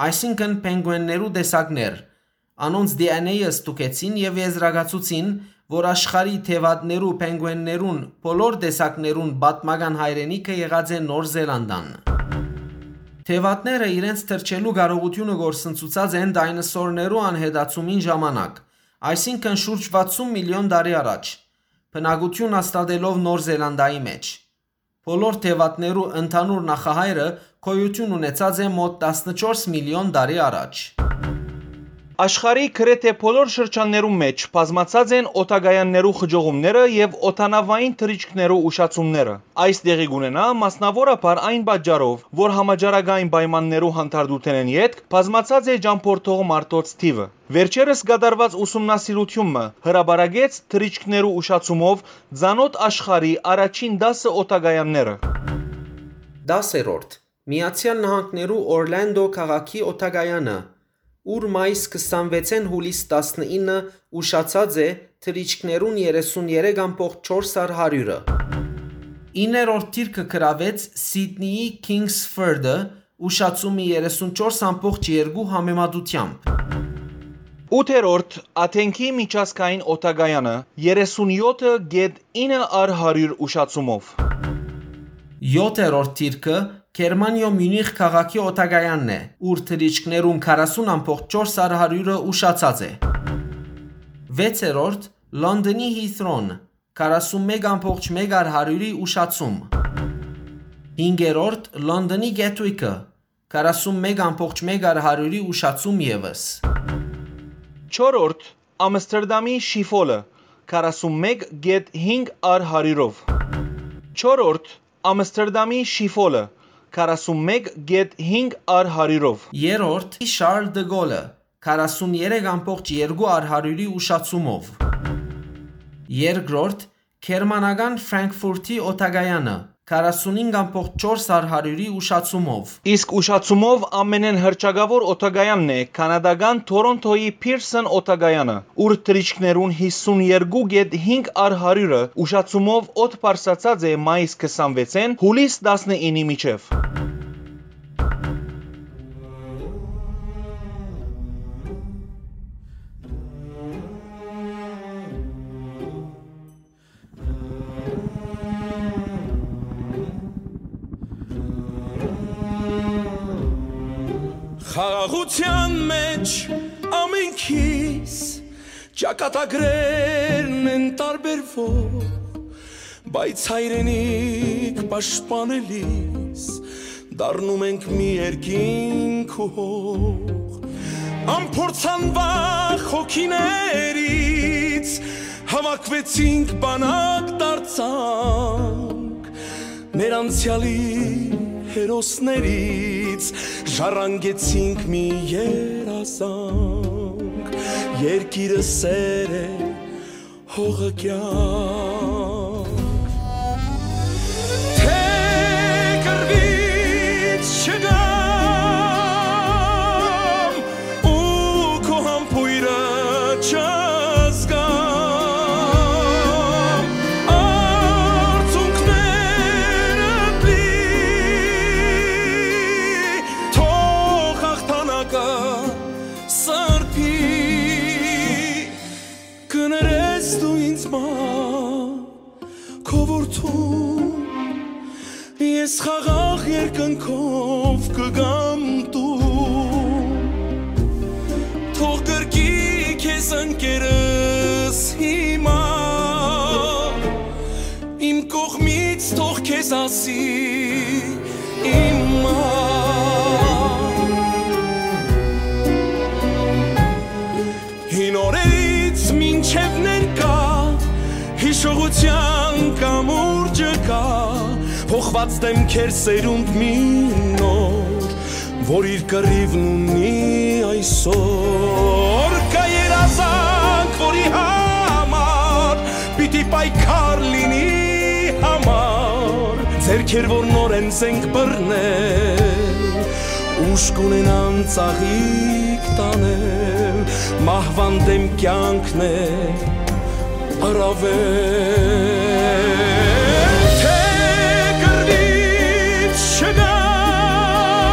այսինքն՝ փենգուէններու տեսակներ։ Անոնց D N A-ը ստուգեցին եւ եզրակացուցին, որ աշխարհի թեւատներու, փենգուէններուն, բոլոր տեսակներուն պատմական հայրենիքը եղած է Նոր Զելանդան։ Թեւատները իրենց թռչելու կարողութիւնը գործընծուցած են դայնասորներու անհետացումին ժամանակ, այսինքն՝ շուրջ վաթսուն միլիոն տարի առաջ, բնակութիւն հաստատելով Նոր Զելանդայի մէջ։ Բոլոր թեւատներու ընդհանուր նախահայրը գոյութիւն ունեցած է մօտ տասնչորս միլիոն տարի առաջ։ Աշխարհի գրեթէ բոլոր շրջաններուն մէջ բազմացած են օդակայաններու խճողումները եւ օդանաւային թռիչքներու ուշացումները։ Այս տեղի կ'ունենայ մասնաւորաբար այն պատճառով, որ համաճարակային պայմաններու հանդարտութենէն ետք բազմացած է ճամբորդող մարդոց թիւը։ Վերջերս կատարուած ուսումնասիրութիւն մը հրապարակեց թռիչքներու ուշացումով ծանօթ աշխարհի առաջին տասը օդակայանները։ Տասերորդ, Միացեալ Նահանգներու Օրլանդո քաղաքի օդակայանը, ուր մայիս քսանվեցէն հուլիս տասնինը ուշացած է թռիչքներուն երեսուն երեք ամբողջ չորս հարյուրը։ Իններորդ դիրքը գրաւեց Սիդնիի Քինգսֆորդը, ուշացումի երեսուն չորս ամբողջ երկու համեմատությամբ։ Ութերորդ, Աթենքի միջազգային օդակայանը, երեսուն յոթը գեթ ինը առ հարիւր ուշացումով։ Եօթերորդ դիրքը Գերմանիոյ Միունիխ քաղաքի օդակայանն է, ուր թռիչքներուն քառասուն ամբողջ չորս առ հարիւրը ուշացած է։ Վեցերորդ, Լոնդոնի Հիթրոն, քառասուն մէկ ամբողջ մէկ առ հարիւրի ուշացում։ Հինգերորդ, Լոնդոնի Գեթուիքը, քառասուն մէկ ամբողջ մէկ առ հարիւրի ուշացում եւս։ Չորրորդ, Ամստերդամի Շիֆոլը, քառասուն մէկ կետ հինգ առ հարիւրով։ Չորրորդ, Ամստերդամի Շիֆոլը, քառասուն մէկ կետ հինգ առ հարիւրով։ Երրորդ, Շարլ դը Գոլը, քառասուն երեք ամբողջ երկու առ հարիւրի ուշացումով։ Երկրորդ, գերմանական Ֆրանկֆուրտի օդակայանը, քառասունհինգ ամբողջ չորս առ հարիւրի ուշացումով։ Իսկ ուշացումով ամենէն հռչակաւոր օդակայանն է կանադական Թորոնթոյի Փիրսոն օդակայանը, ուր թռիչքներուն յիսուն երկու կետ հինգ առ հարիւրը ուշացումով օդ բարձրացած է մայիս քսանվեցէն յուլիս տասնինի միջեւ։ Խաղաղութեան մէջ ամենքիս ճակատագրերն են տարբերվող, բայց հայրենիք պաշտպանելիս դառնում ենք մի երկինք ու հող։ Անփորձանվախ հոգիներից հավաքվեցինք, բանակ դարձանք, մեր անցեալի հերոսներից ժառանգեցինք մի երազանք։ Երկիրը սեր է, հողը կեանք։ Թէ կռուից չգամ ու քո համբոյրը չզգամ, արցունքներդ լի, թող հաղթանակը սրբի։ Կներես դու ինձ մա, քո որդուն, ես խաղաղ երկնքով կգամ տուն։ Թող կրկի քեզ ընկերս հիմա, իմ կողմից թող քեզ ասի իմ մա։ Հին օրերից մինչև ներկայ հիշողութեան կամուրջը կայ, փոխուած դէմքեր սերունդ մի նոր, որ իր կռիւն ունի այսօր։ Կայ երազանք, որի համար պիտի պայքար լինի համար, ձեռքեր, որ նորէն զենք բռնել, ուժ կունենան ծաղիկ տանել, մահուան դէմ կեանքն է առաւել։ Թէ կռուից չգամ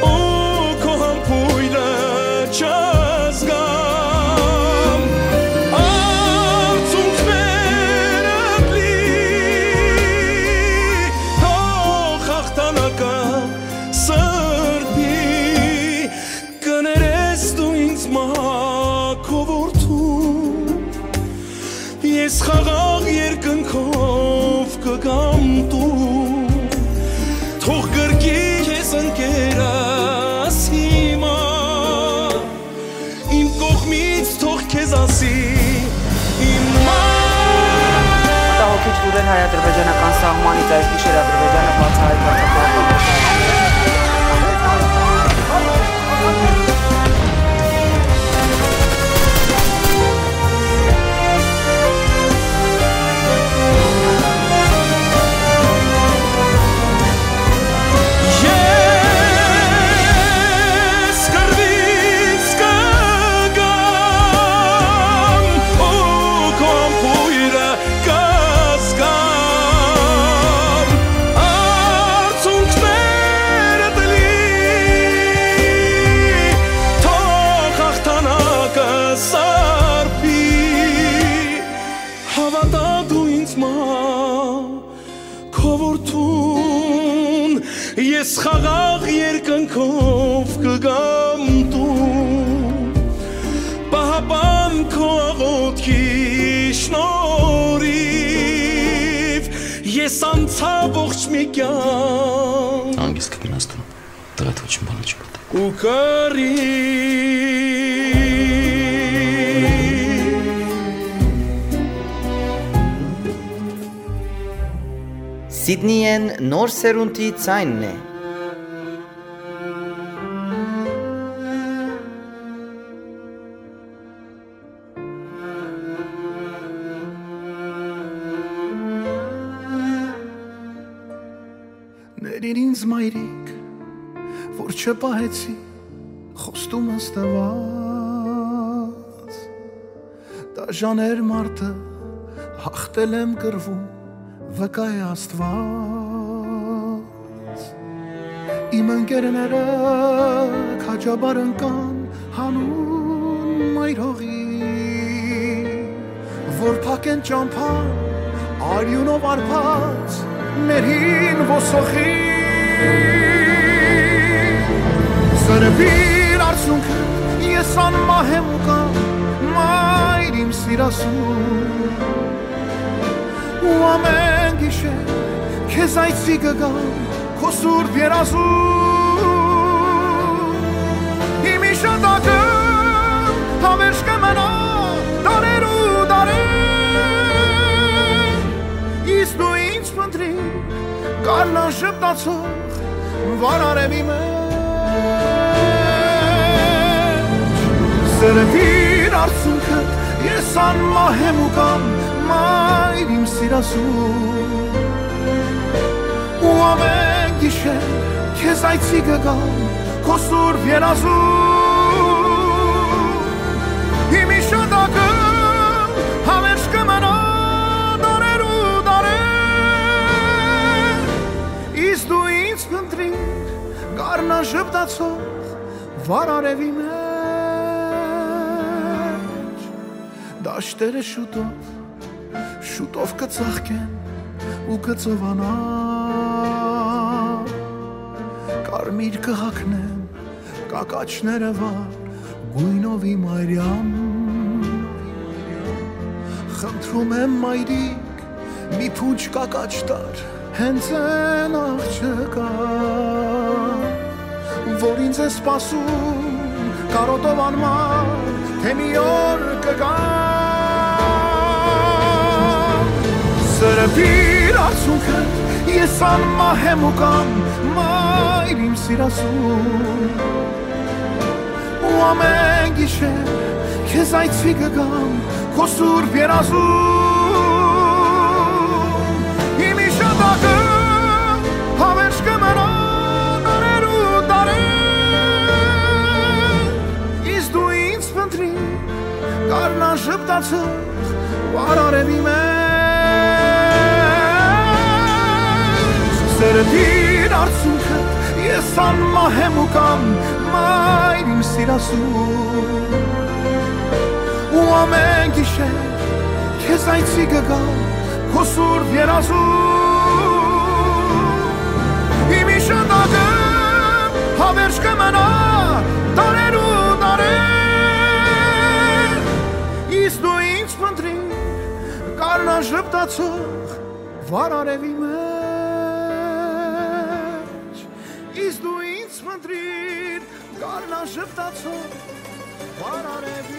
ու քո համբոյրը չզգամ, արցունքներդ լի, թող հաղթանակը սրբի։ Կներես դու ինձ մա, քո որդուն, ես խաղաղ երկնքով կգամ տուն, թող կրկի քեզ ընկերս հիմա, իմ կողմից թող քեզ ասի իմ մայր։ Մտահոգիչ լուրեր հայ-ադրբեջանական սահմանից, այս գիշեր Ադրբեջանը բացահայտված է Ես կռուից կգամ ու քո համբոյրը կզգամ, արցունքներդ լի, թող հաղթանակը սրբի։ Հաւատա դու ինձ մա, քո որդուն, ես խաղաղ երկնքով կգամ տուն, պահապան քո աղօթքի շնորհիվ ես անցայ ողջ մի կեանք։ Հանգիստ կգնաս տուն։ Դրատոչին բանաչի մտա։ Ու կռի։ Սիդնիեն նոր սերունդի ձայնն է։ Ներիր ինձ, մայրիկ, որ չպահեցի խոստումս տված։ Դաժան էր մարդը, հաղթել եմ կռվում, վկայ է Աստուած։ Իմ ընկերները քաջաբար ընկան հանուն մայր հողի, որ փակեն ճամբան արիունով արբած մեր հին ոսոխի։ Սրբիր արցունքը, ես անմահ եմ ու կամ, մայր իմ սիրասուն, ու ամեն գիշեր քեզ այցի կգամ քո սուրբ երազում։ Իմ իշատակը հավերժ կը մնայ դարեր ու դարեր, իսկ դու ինձ փնտրիր գարնան ժպտացող վառ արեւի մէջ։ Սրբիր արցունքդ, ես անմահ եմ ու կամ, մայր իմ սիրասուն, ու ամեն գիշեր քեզ այցի կգամ քո սուրբ երազում։ Իմ իշատակը հավերժ կը մնայ դարեր ու դարեր, իսկ դու ինձ փնտրիր գարնան ժպտացող վառ արեւի մէջ։ Դաշտերը շուտով, շուտով կը ծաղկեն ու կը ծովանան, կարմիր կը հագնեն կակաչները վառ գոյնովի մայրյան։ Խնդրում եմ, մայրիկ, մի փունջ կակաչ տար հենց այն աղջկա, որ ինձ է սպասում կարոտով անմար, թե մի օր կգա։ Սրբիր արցունքը, ես անմահ եմ ու կամ, մայր իմ սիրասուն, ու ամեն գիշեր քեզ այցի կգամ քո սուրբ երազում։ Իմ իշատակը հավերժ կը մնայ դարեր ու դարեր, իսկ դու ինձ փնտրիր գարնան ժպտացող վառ արեւի մէջ։ Սրբիր արցունքը, ես անմահ եմ ու կամ, մայր իմ սիրասուն, ու ամեն գիշեր քեզ այցի կգամ քո սուրբ երազում։ Իմ իշատակը հավերժ կը մնայ դարեր ու դարեր, իսկ դու ինձ փնտրիր գարնան ժպտացող վառ արեւի մէջ, իսկ դու ինձ փնտրիր գարնան ժպտացող վառ արեւի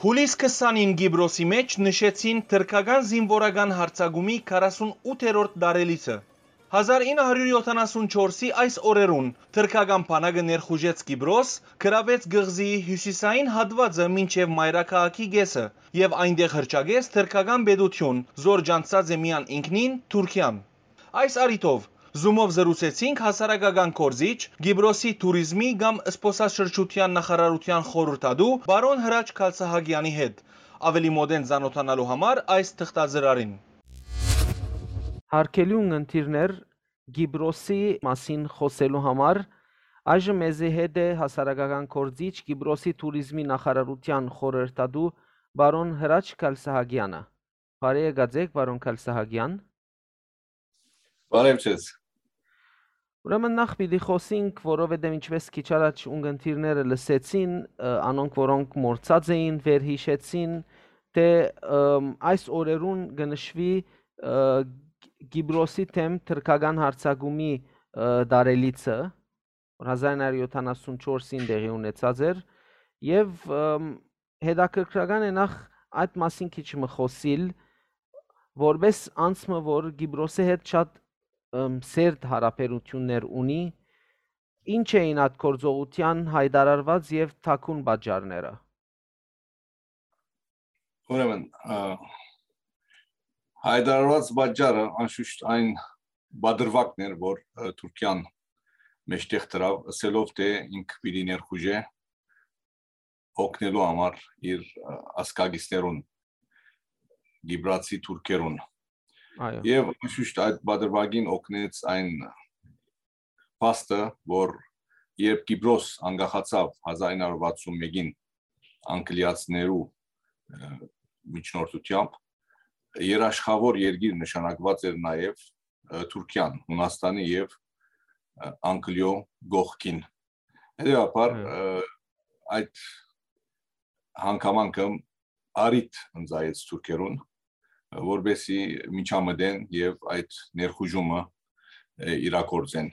Հուլիս քսանին Կիպրոսի մէջ նշեցին թրքական զինուորական յարձակումի քառասունութերորդ տարելիցը։ Հազար ինը հարիւր յոթանասունչորսի այս օրերուն թրքական բանակը ներխուժեց Կիպրոս, գրաւեց կղզիի հիւսիսային հատուածը մինչեւ մայրաքաղաքի կէսը եւ այնտեղ հռչակեց թրքական պետութիւն, զոր ճանչցած է միայն ինքնին՝ Թուրքիան։ Այս առիթով Zoom-ով զրուցեցինք հասարակական գործիչ, Կիպրոսի թուրիզմի կամ զբօսաշրջութեան նախարարութեան խորհրդատու պարոն Հրաչ Քալսահակեանի հետ։ Աւելի մօտէն ծանօթանալու համար այս թղթածրարին։ Հարգելի ունգընտիրներ, Կիպրոսի մասին խօսելու համար այժմ մեզի հետ է հասարակական գործիչ, Կիպրոսի թուրիզմի նախարարութեան խորհրդատու պարոն Հրաչ Քալսահակեանը։ Բարի եկած եք, պարոն Քալսահակեան։ Բարև ձեզ։ Ուրեմն նախ պիտի խօսենք, որովհետև ինչպես քիչ առաջ ունգընտիրները լսեցին, ը, անոնք, որոնք մոռցած էին, վերհիշեցին, թէ, ըմ, այս օրերուն կը նշուի ը, Կիպրոսի դէմ թրքական յարձակումի, ը, դարելիցը, որ հազար ինը հարիւր յոթանասուն չորսին տեղի ունեցած էր, եւ, ըմ, հետաքրքրական է նախ այդ մասին քիչ մը խօսիլ, որպէս անձ մը, որ Կիպրոսի հետ շատ, ըմ, սերտ յարաբերութիւններ ունի, ի՞նչ էին այդ գործողութեան յայտարարուած եւ թաքուն պատճառները։ Ուրեմն, ը, յայտարարուած պատճառը անշուշտ այն պատրուակն էր, որ, ը, Թուրքիան մէջտեղ դրաւ, ըսելով թէ ինք պիտի ներխուժէ օգնելու համար իր, ը, ազգակիցներուն, կիպրացի թուրքերուն։ Այո։ Եւ անշուշտ այդ պատրուակին օգնեց այն փաստը, որ երբ Կիպրոս անկախացաւ հազար ինը հարիւր վաթսուն մէկին անգլիացիներու, ը, միջնորդութեամբ, երաշխաւոր երկիր նշանակուած էր նաեւ, ը, Թուրքիան, Յունաստանի եւ, ը, Անգլիոյ կողքին։ Հետեւաբար, Հը։ ը, այդ հանգամանքը առիթ ընծայեց թուրքերուն, որպեսզի միջամտեն եւ այդ ներխուժումը, ը, իրագործեն։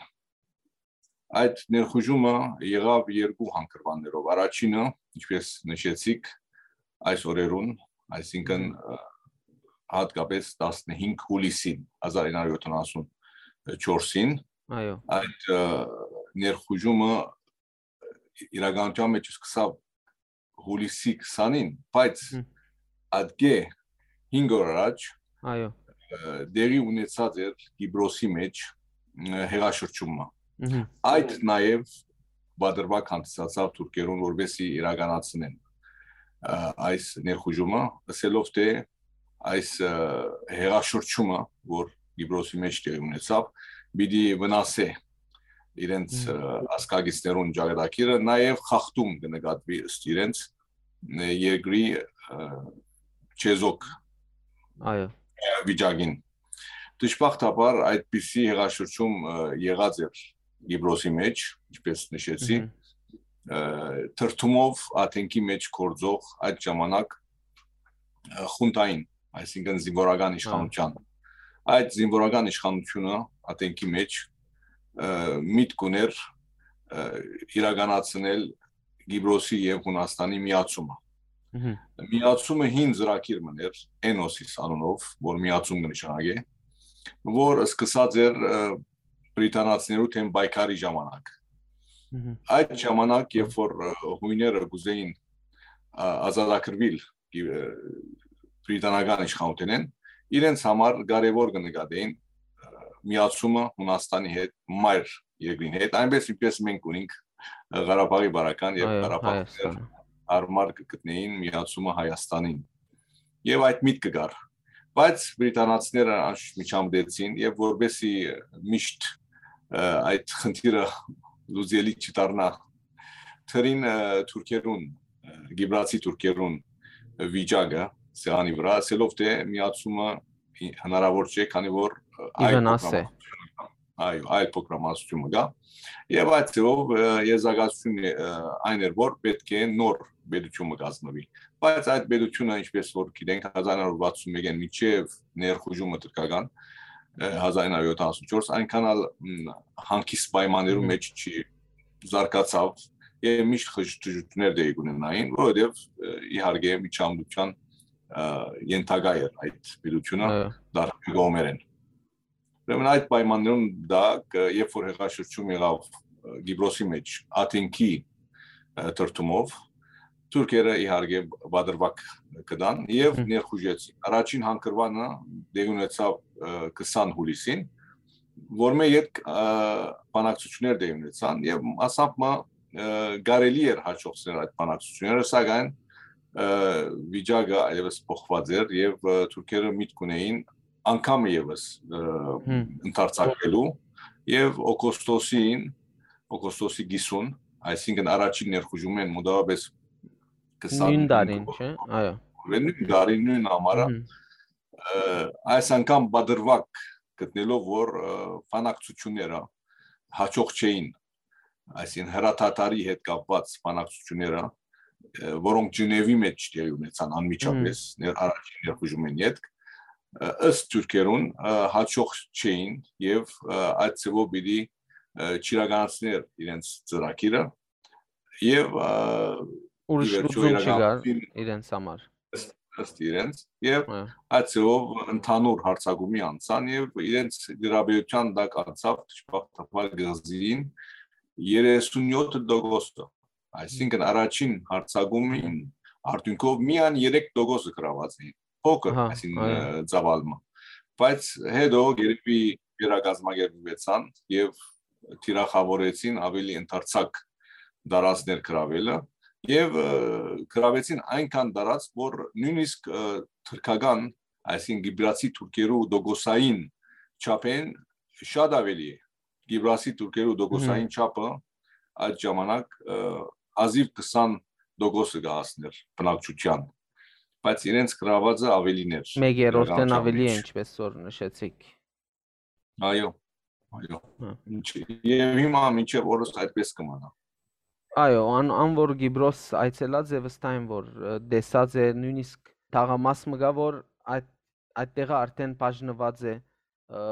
Այդ ներխուժումը եղաւ երկու հանգրուաններով։ Առաջինը, ինչպես նշեցիք, այս օրերուն, այսինքն, Մհմ։ ը, հատկապես տասնհինգ հուլիսին, հազար ինը հարիւր յոթանասուն չորսին, Այո։ այդ, ը, ներխուժումը իրականության մեջ սկսաւ հուլիսի քսանին, բայց Մհմ։ ատկէ հինգ օր առաջ, Այո։ ը, տեղի ունեցած էր Կիպրոսի մեջ, ը, հեղաշրջումը։ Մհմ։ Այդ նաեւ պատրուակ հանդիսացաւ թուրքերուն, որպեսզի իրականացնեն, ը, այս ներխուժումը, ըսելով թէ այս, ը, հեղաշրջումը, որ Կիպրոսի մեջ տեղի ունեցաւ, պիտի վնասէ իրենց, Մհմ։ ը, ազգակիցներուն ճակատագիրը, նաեւ խախտում կը նկատուի ըստ իրենց, ը, երկրի, ը, չեզոք Այո։ վիճակին։ Դժբախտաբար այդպիսի հեղաշրջում, ը, եղած էր Կիպրոսի մեջ, ինչպես նշեցի, Մհմ։ ը, թրթումով Աթենքի մեջ գործող այդ ժամանակ, ը, խունտային, այսինքն զինվորական Հա։ իշխանության։ Այդ զինվորական իշխանությունը Աթենքի մեջ, ը, միտք ուներ, ը, իրականացնել Կիպրոսի եւ Յունաստանի միացումը։ Մհմ։ Միացումը հին ծրագիր մըն էր, Էնոսիս անունով, որ միացում կը նշանակէ, որ սկսած էր, ը, բրիտանացիներու դէմ պայքարի ժամանակ։ Մհմ։ Այդ ժամանակ, երբ որ, ը, յոյները կ'ուզէին, ա, ազատագրուիլ, ը, բրիտանական իշխանութենէն, իրենց համար կարեւոր կը նկատէին, ը, միացումը Յունաստանի հետ, մայր երկրին հետ, այնպես ինչպես մենք ունենք, ը, Ղարաբաղի բարական եւ Այո, Ղարաբաղցիներ Հայաստանը։ Հարմար կը գտնեին միացումը Հայաստանին։ Եվ այդ միտքը կար։ Բայց բրիտանացիները անշուշտ միջամտեցին եւ որպեսզի միշտ, ը, այդ խնդիրը լուծելի չդառնա, թրին, ը, թուրքերուն, ը, կիպրացի թուրքերուն վիճակը սեղանի վրա, ասելով թէ միացումը հնարավոր չէ, քանի որ, ը, Ի այլ վնաս է։ փոքրամասնություն կայ, այո, այլ փոքրամասնություն կայ։ Եվ այդ ձևով, ը, եզրակացությունը, ը, այն էր, որ պէտք է նոր պետություն մը կազմվի։ Բայց այդ պետությունը, ինչպես որ գիտենք, հազար ինը հարիւր վաթսուն մէկէն մինչեւ ներխուժումը թրքական, ը, հազար ինը հարիւր յոթանասուն չորս, այնքան ալ, մ, հանգիստ պայմաններու Մհմ։ մեջ չի զարգացաւ եւ միշտ խժ-, խժշկութիւններ տեղի կունենային, որովհետեւ, ը, իհարկե միջամտության, ը, ենթակայ էր այդ պետությունը Այո։ դարբեր կողմերէն։ Ուրեմն այդ պայմաններուն տակ, ը, երբ որ հեղաշրջում եղաւ, ը, Կիպրոսի մեջ Աթենքի, ը, թրթումով, թուրքերը իհարկե պատրվակ կտան եւ Մհմ։ ներխուժեցին։ Առաջին հանգրվանը տեղի ունեցաւ, ը, քսան հուլիսին, որ մէ ետք, ը, բանակցություններ տեղի ունեցան եւ մասամբ մը, ը, կարելի էր հաջողցնել այդ բանակցությունները, սակայն, ը, վիճակը այլեւս փոխված էր եւ, ը, թուրքերը միտք ունեին անգամ եւս, ը, Հմ։ ընդարձակվելու եւ օգոստոսին, օգոստոսի կիսուն, այսինքն առաջին ներխուժումէն մոտավորապես քսան Նոյն տարին, չէ՞։ Այո։ Նոյն տարին, նոյն ամառը, Մհմ։ ը, այս անգամ պատրվակ գտնելով, որ, ը, բանակցությունները հաջող չէին, այսինքն հրադադարի հետ կապված բանակցությունները, ը, որոնք Ժնևի մեջ տեղի ունեցան անմիջապես Մհմ։ ներ-, առաջին ներխուժումէն ետք, ը, ըստ թուրքերուն, ը, հաջող չէին եւ, ը, այդ ձեւով պիտի, ը, չիրականացներ իրենց ծրագիրը եւ, ը, Ուրիշ ի վերջոյ լուծում չկար իրականացին իրենց համար։ Ըստ, ըստ իրենց, եւ Հա։ այդ ձեւով ընդհանուր հարձակումի անցան եւ իրենց դիրապետութեան տակ անցաւ դժբախտաբար կղզին երեսունյոթ տոկոսը, այսինքն առաջին հարձակումին արդյունքով միայն երեք տոկոսը գրաված էին, փոքր, Ահա, այսինքն, այո։ ը, ծավալը։ Բայց հետո երբի վերակազմակերպուեցան եւ թիրախավորեցին ավելի ընդարձակ դարածքներ գրաւելը եւ, ը, գրավեցին այնքան դարած, որ նույնիսկ, ը, թրքական, այսինքն կիպրացի թուրքերու տոկոսային չափեն շատ ավելի է։ Կիպրացի թուրքերու տոկոսային Հմ։ չափը այդ ժամանակ, ը, հազիւ քսան տոկոսը կը հասներ բնակչութեան, բայց իրենց գրավածը ավելին էր, Մեկ երրորդն իրականության ավելի է, մեջ։ ինչպես որ նշեցիք։ Այո, այո։ Հա։ Ինչ, եւ հիմա մինչեւ օրս այդպես կը մնա։ Այո, ան, ան որ Կիպրոս այցելած է, վստահ եմ, որ, ը, տեսած է, նույնիսկ թաղամաս մը կա, որ այդ, այդ տեղը արդեն բաժնված է, ը,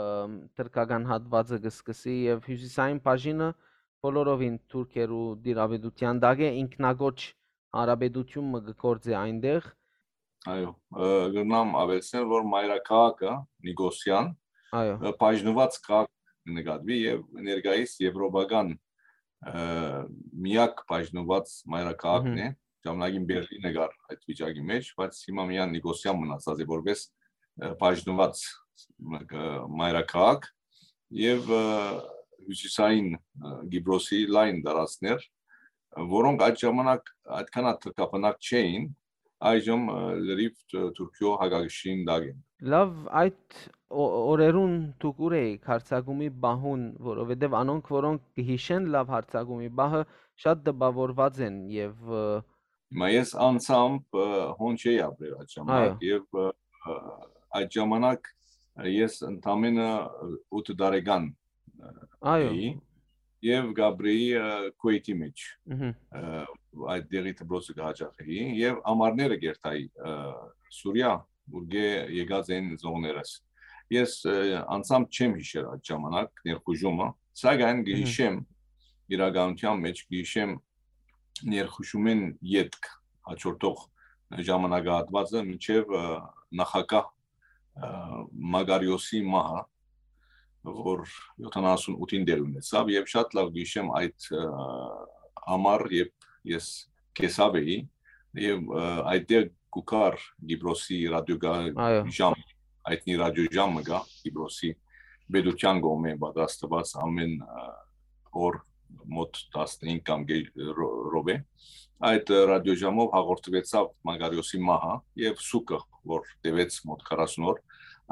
թրքական հատվածը կը սկսի եւ հիւսիսային բաժինը բոլորովին թուրքերու դիրապետութեան տակ է, ինքնակոչ հանրապետություն մը կը գործի այնտեղ։ Այո, ը, կրնամ ավելցնել, որ մայրաքաղաքը Նիկոսիան, Այո։ ը, բաժնված քաղաք կը նկատուի եւ ներկայիս եվրոպական, ը, միակ բաժնված մայրաքաղաքն Մհմ։ է, ժամանակին Բերլինը կար այդ վիճակի մեջ, բայց հիմա միայն Նիկոսիան մնացած է որպես, ը, բաժնված, ը, մայրաքաղաք եւ, ը, հյուսիսային, ը, Կիպրոսի լայն տարածքներ, որոնք այդ ժամանակ այդքան թրքաբնակ չէին, այժմ, ը, լրիվ Թ-, Թուրքիոյ հակակշիռին տակ են։ Լավ, այդ օ-, օրերուն դուք ուր էիք հարձակումի պահուն, որովհետեւ անոնք, որոնք կը յիշեն լավ հարձակումի պահը, շատ տպաւորուած են եւ, ը, Հիմա ես անձամբ, ը, հոն չէի ապրեր այդ ժամանակ Այո։ եւ, ը, ը, այդ ժամանակ ես ընդամենը ութ տարեկան, ը, Այո։ էի եւ կապրեի, ը, Քուէյթի մեջ, Մհմ։ ը, այդ դեղի դպրոցը կը հաճախեի եւ ամառները կերթայի, ը, Սուրիա, ուրկէ եկած են զողներս։ Ես, ը, անձամբ չեմ յիշեր այդ ժամանակ ներխուժումը, սակայն կը Մհմ։ յիշեմ իրականության մեջ, կը յիշեմ ներխուժումէն ետք հաջորդող ժամանակահատվածը մինչեւ, ը, նախագահ, ը, Մակարիոսի մահը, որ յոթանասուն ութին տեղի ունեցաւ, եւ շատ լավ կը յիշեմ այդ, ը, ամառ, երբ ես կեսաւ էի, եւ, ը, այդտեղ կու գար Կիպրոսի ռադիոկայ Այո։ ժամ, հայտնի ռադիոժամ մը կայ Կիպրոսի պետութեան կողմէ պատրաստուած ամէն, ը, օր մոտ տասնհինգ կամ գէ-, ռո-, րոպե։ Այդ, ը, ռադիոժամով հաղորդուեցաւ Մակարիոսի մահը եւ սուքը, որ տեւեց մոտ քառասուն օր,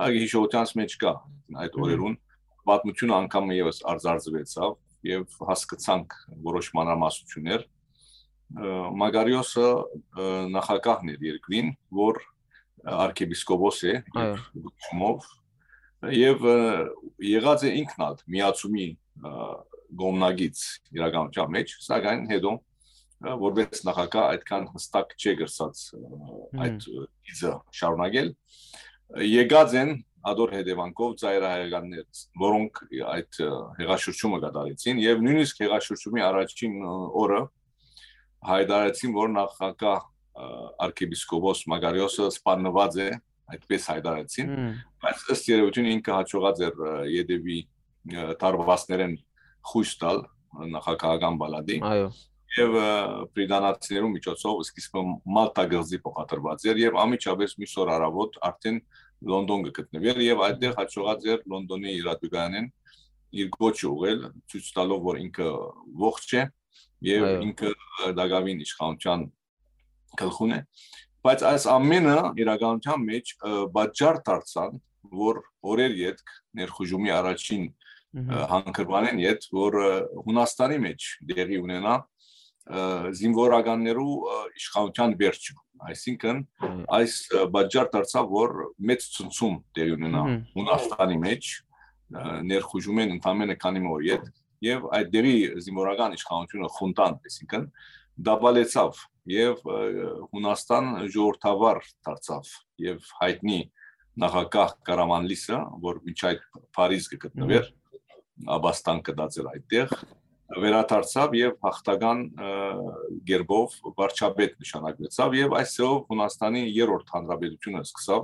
այդ հիշողութեանց մեջ կայ այդ Մհմ։ օրերուն պատմությունը անգամ ևս արձարծուեցաւ եւ հասկցանք որոշ մանրամասնություններ։ Ը, Մակարիոսը, ը, նախագահն էր երկրին, որ արքեպիսկոպոս է Այո։ իր կոչումով, եւ, ը, եղած է ինքն ալ միացումի, ը, կողմնակից իրականության մեջ, սակայն հետո, ը, որպես նախագահ այդքան հստակ չէ կրցած, ը, Հմ։ այդ, ը, գիծը շարունակել։ Եկած են ադոր հետևանքով ծայրահեղականներ, որոնք այդ, ը, հեղաշրջումը կատարեցին, եւ նույնիսկ հեղաշրջումի առաջին, ը, օրը հայտարարեցին, որ նախագահ, ը, արքեպիսկոպոս Մակարիոսը սպաննված է, այդպես հայտարարեցին, Հմ։ բայց ըստ երևույթին ինքը հաջողած էր, ը, ետևի, ը, դարպասներէն խոյս տալ նախագահական պալատի Այո։ եւ, ը, բրիտանացիներու միջոցով սկիզբը Մալթա կղզի փոխադրված էր եւ անմիջապես մյուս օր առավոտ արդեն Լոնդոն կը գտնուէր եւ այդտեղ հաջողած էր Լոնդոնի իրատուկայանեն իր կոչը ուղղել, ցոյց տալով, որ ինքը ողջ է եւ Այո։ ինքը, ը, տակաւին իշխանության գլխուն է, բայց այս ամենը իրականության մեջ, ը, պատճառ դարձան, որ օրեր ետք ներխուժումի առաջին, Մհմ։ ը, հանգրուանէն յետ, որ, ը, Հունաստանի մեջ տեղի ունենայ, ը, զինվորականներու, ը, իշխանության վերջը, այսինքն Մհմ։ այս, ը, պատճառ դարձաւ, որ մեծ ցնցում տեղի ունենայ Մհմ։ Հունաստանի մեջ, ը, ներխուժումէն ընդամենը քանի մը օր ետք, եւ այդ դեղի զինվորական իշխանությունը խունտան, այսինքն, դաբալեցաւ եւ, ը, Հունաստան ժողովրդավար դարձաւ եւ հայտնի, նախագահ Կարամանլիսը, որ մինչ այդ Փարիզ կը գտնուէր, աբաստան կտած էր այդտեղ, վերադարձաւ եւ հաղթական, ը, գերբով վարչապետ նշանակվեցաւ եւ այս ձեւով Հունաստանի երրորդ հանրապետութիւնը սկսաւ,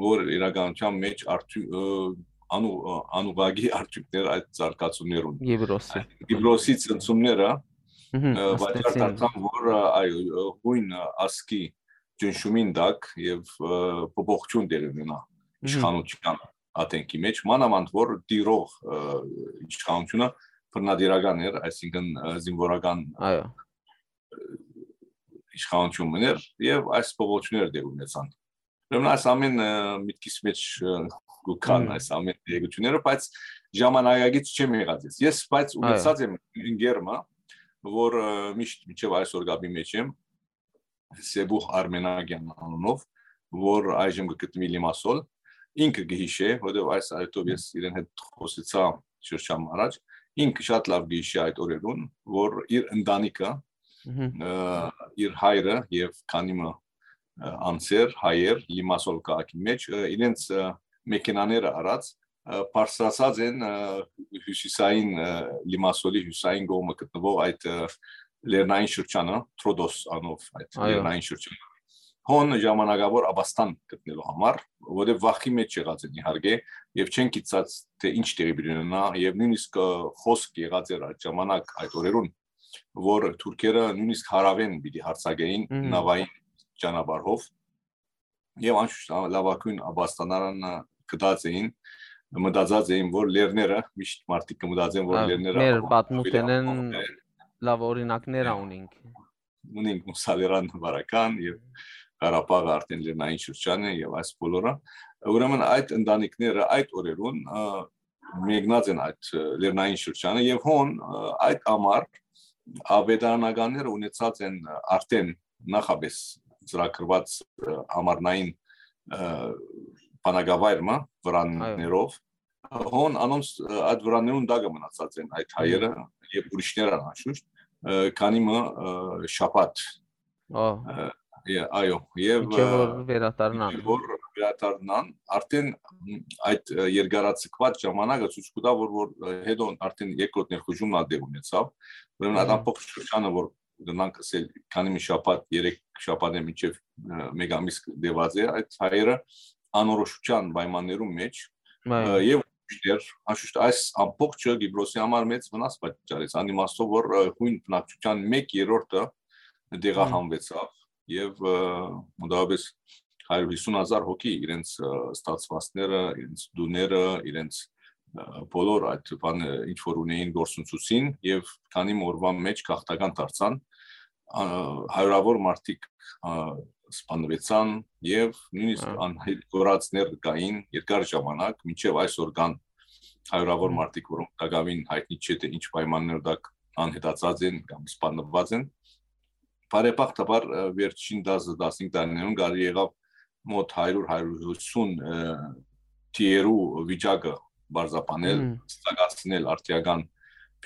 որ իրականության մեջ արդյու-, ը, անու-, ը, անուղղակի արդյունքներ այդ զարգացումներուն։ Գիբրոսի։ Գիբրոսի ցնցումները, Մհմ, ը, պատճառ ստացին։ Դարձան, որ, ը, այո, ը, հույն, ը, ազգի ճնշումին տակ եւ, ը, փոփոխություն տեղի ունենայ Մհմ։ իշխանության ատենքի մեջ, մանաւանդ որ տիրող, ը, իշխանությունը բռնատիրական էր, այսինքն, ը, զինվորական, Այո։ ը, իշխանություն մըն էր եւ այս փոփոխությունները տեղի ունեցան։ Ուրեմն այս ամեն, ը, միտքիս մեջ, ը, կու գան Մհմ։ այս ամեն տեղեկությունները, բայց ժամանակակից չեմ եղած ես։ Ես, բայց Այո։ Ունեցած եմ ընկերմը, որ, ը, միշտ մինչեւ այսօր կապի մեջ եմ, Սեբուհ Արմենագյան անունով, որ այժմ կը գտնուի Լիմասոլ, ինքը կը յիշէ, որովհետեւ այս այդով ես իրեն հետ խոսեցայ շրջան առաջ, ինքը շատ լավ կը յիշէ այդ օրերուն, որ իր ընտանիքը, Մհմ։ ը, իր հայրը եւ քանի մը, ը, անձեր, հայեր, Լիմասոլ քաղաքի մեջ, ը, իրենց, ը, մեքենաները առած, ը, բարձրացած են, ը, հյուսիսային, ը, Լիմասոլի հյուսիսային կողմը գտնվող այդ, ը, լեռնային շրջանը, Տրոդոս անով այդ Այո։ լեռնային շրջանը, հոն ժամանակավոր աբաստան գտնելու համար, որտեղ վախի մեջ եղած են իհարկե, եւ չեն գիտած, թե ինչ տեղի պիտի ունենայ, եւ նոյնիսկ, ը, խօսք եղած էր այդ ժամանակ, այդ օրերուն, որ թուրքերը նոյնիսկ հարաւէն պիտի յարձակէին Մհմ։ նավային ճանապարհով, եւ անշուշտ, ա, լաւագոյն աբաստանարանը գտած էին, մտածած էին, որ լեռները, միշտ մարդիկ կը մտածեն, որ Ա, լեռները մեր ավելի պատմութենէն անվտանգ են։ Լավ օրինակներ ա Ա, ունինք։ Ունենք Մուսալերան վարական եւ Ղարաբաղը արդեն լեռնային շրջան է եւ այս բոլորը։ Ուրեմն այդ ընտանիքները այդ օրերուն, ը, մեկնած են այդ, ը, լեռնային շրջանը եւ հոն, ը, այդ ամառ ավետարանականները ունեցած են, ը, արդեն նախապես ծրագրված, ը, ամառնային, ը, բանակավայրը Այո։ վրաններով։ Հոն անոնց, ը, այդ վրաններուն տակը մնացած են այդ Մհմ։ հայերը եւ ուրիշներ անշուշտ, ը, քանի մը, ը, շաբաթ։ Ա, Ը, ե-, այո, եւ, մինչեւ որ ը, վերադառնան։ մինչեւ որ վերադառնան, արդեն այդ, ը, երկարաձգված ժամանակը ցույց կու տայ, որ, որ, ը, հետո արդեն երկրորդ ներխուժումն ալ դեր ունեցավ, ուրեմն այդ Մհմ։ ամբողջ շրջանը, որ գնանք ասել, քանի մի շաբաթ, երեք շաբաթ է մինչեւ, ը, մեկ ամիս դեված է, այդ հայերը անորոշության պայմաններուն մեջ, Այո։ ը, եւ ուրիշներ, անշուշտ այս ամբողջը Գիբրոսի համար մեծ վնաս պատճառեց, անիմաստով որ, ը, հույն բնակչության մեկ երրորդը Մհմ։ տեղահանուեցավ եւ, ը, մոտավորապես հարիւր հիսուն հազար հոգի իրենց, ը, ստացվածքները, իրենց տուները, իրենց, ը, բոլոր այդ բանը, ինչ որ ունեին, գործընծուցին եւ քանի մը օրուան մեջ գաղթական դարձան, ա, հարիւրավոր մարդիկ, ա, սպանուեցան եւ նոյնիսկ Ա։ անհետ կորածներ կային երկար ժամանակ, մինչեւ այսօր կան հարիւրավոր Մհմ։ մարդիկ, որոնք տակաւին հայտնի չէ, թե ինչ պայմաններու տակ անհետացած են կամ սպանված են։ Բարեբախտաբար, ը, վերջին տասը, տասնհինգ տարիներուն կարելի եղաւ մոտ հարիւր, հարիւր հիսուն, ը, թիերու վիճակը պարզաբանել, Մհմ։ ստակացնել արդիական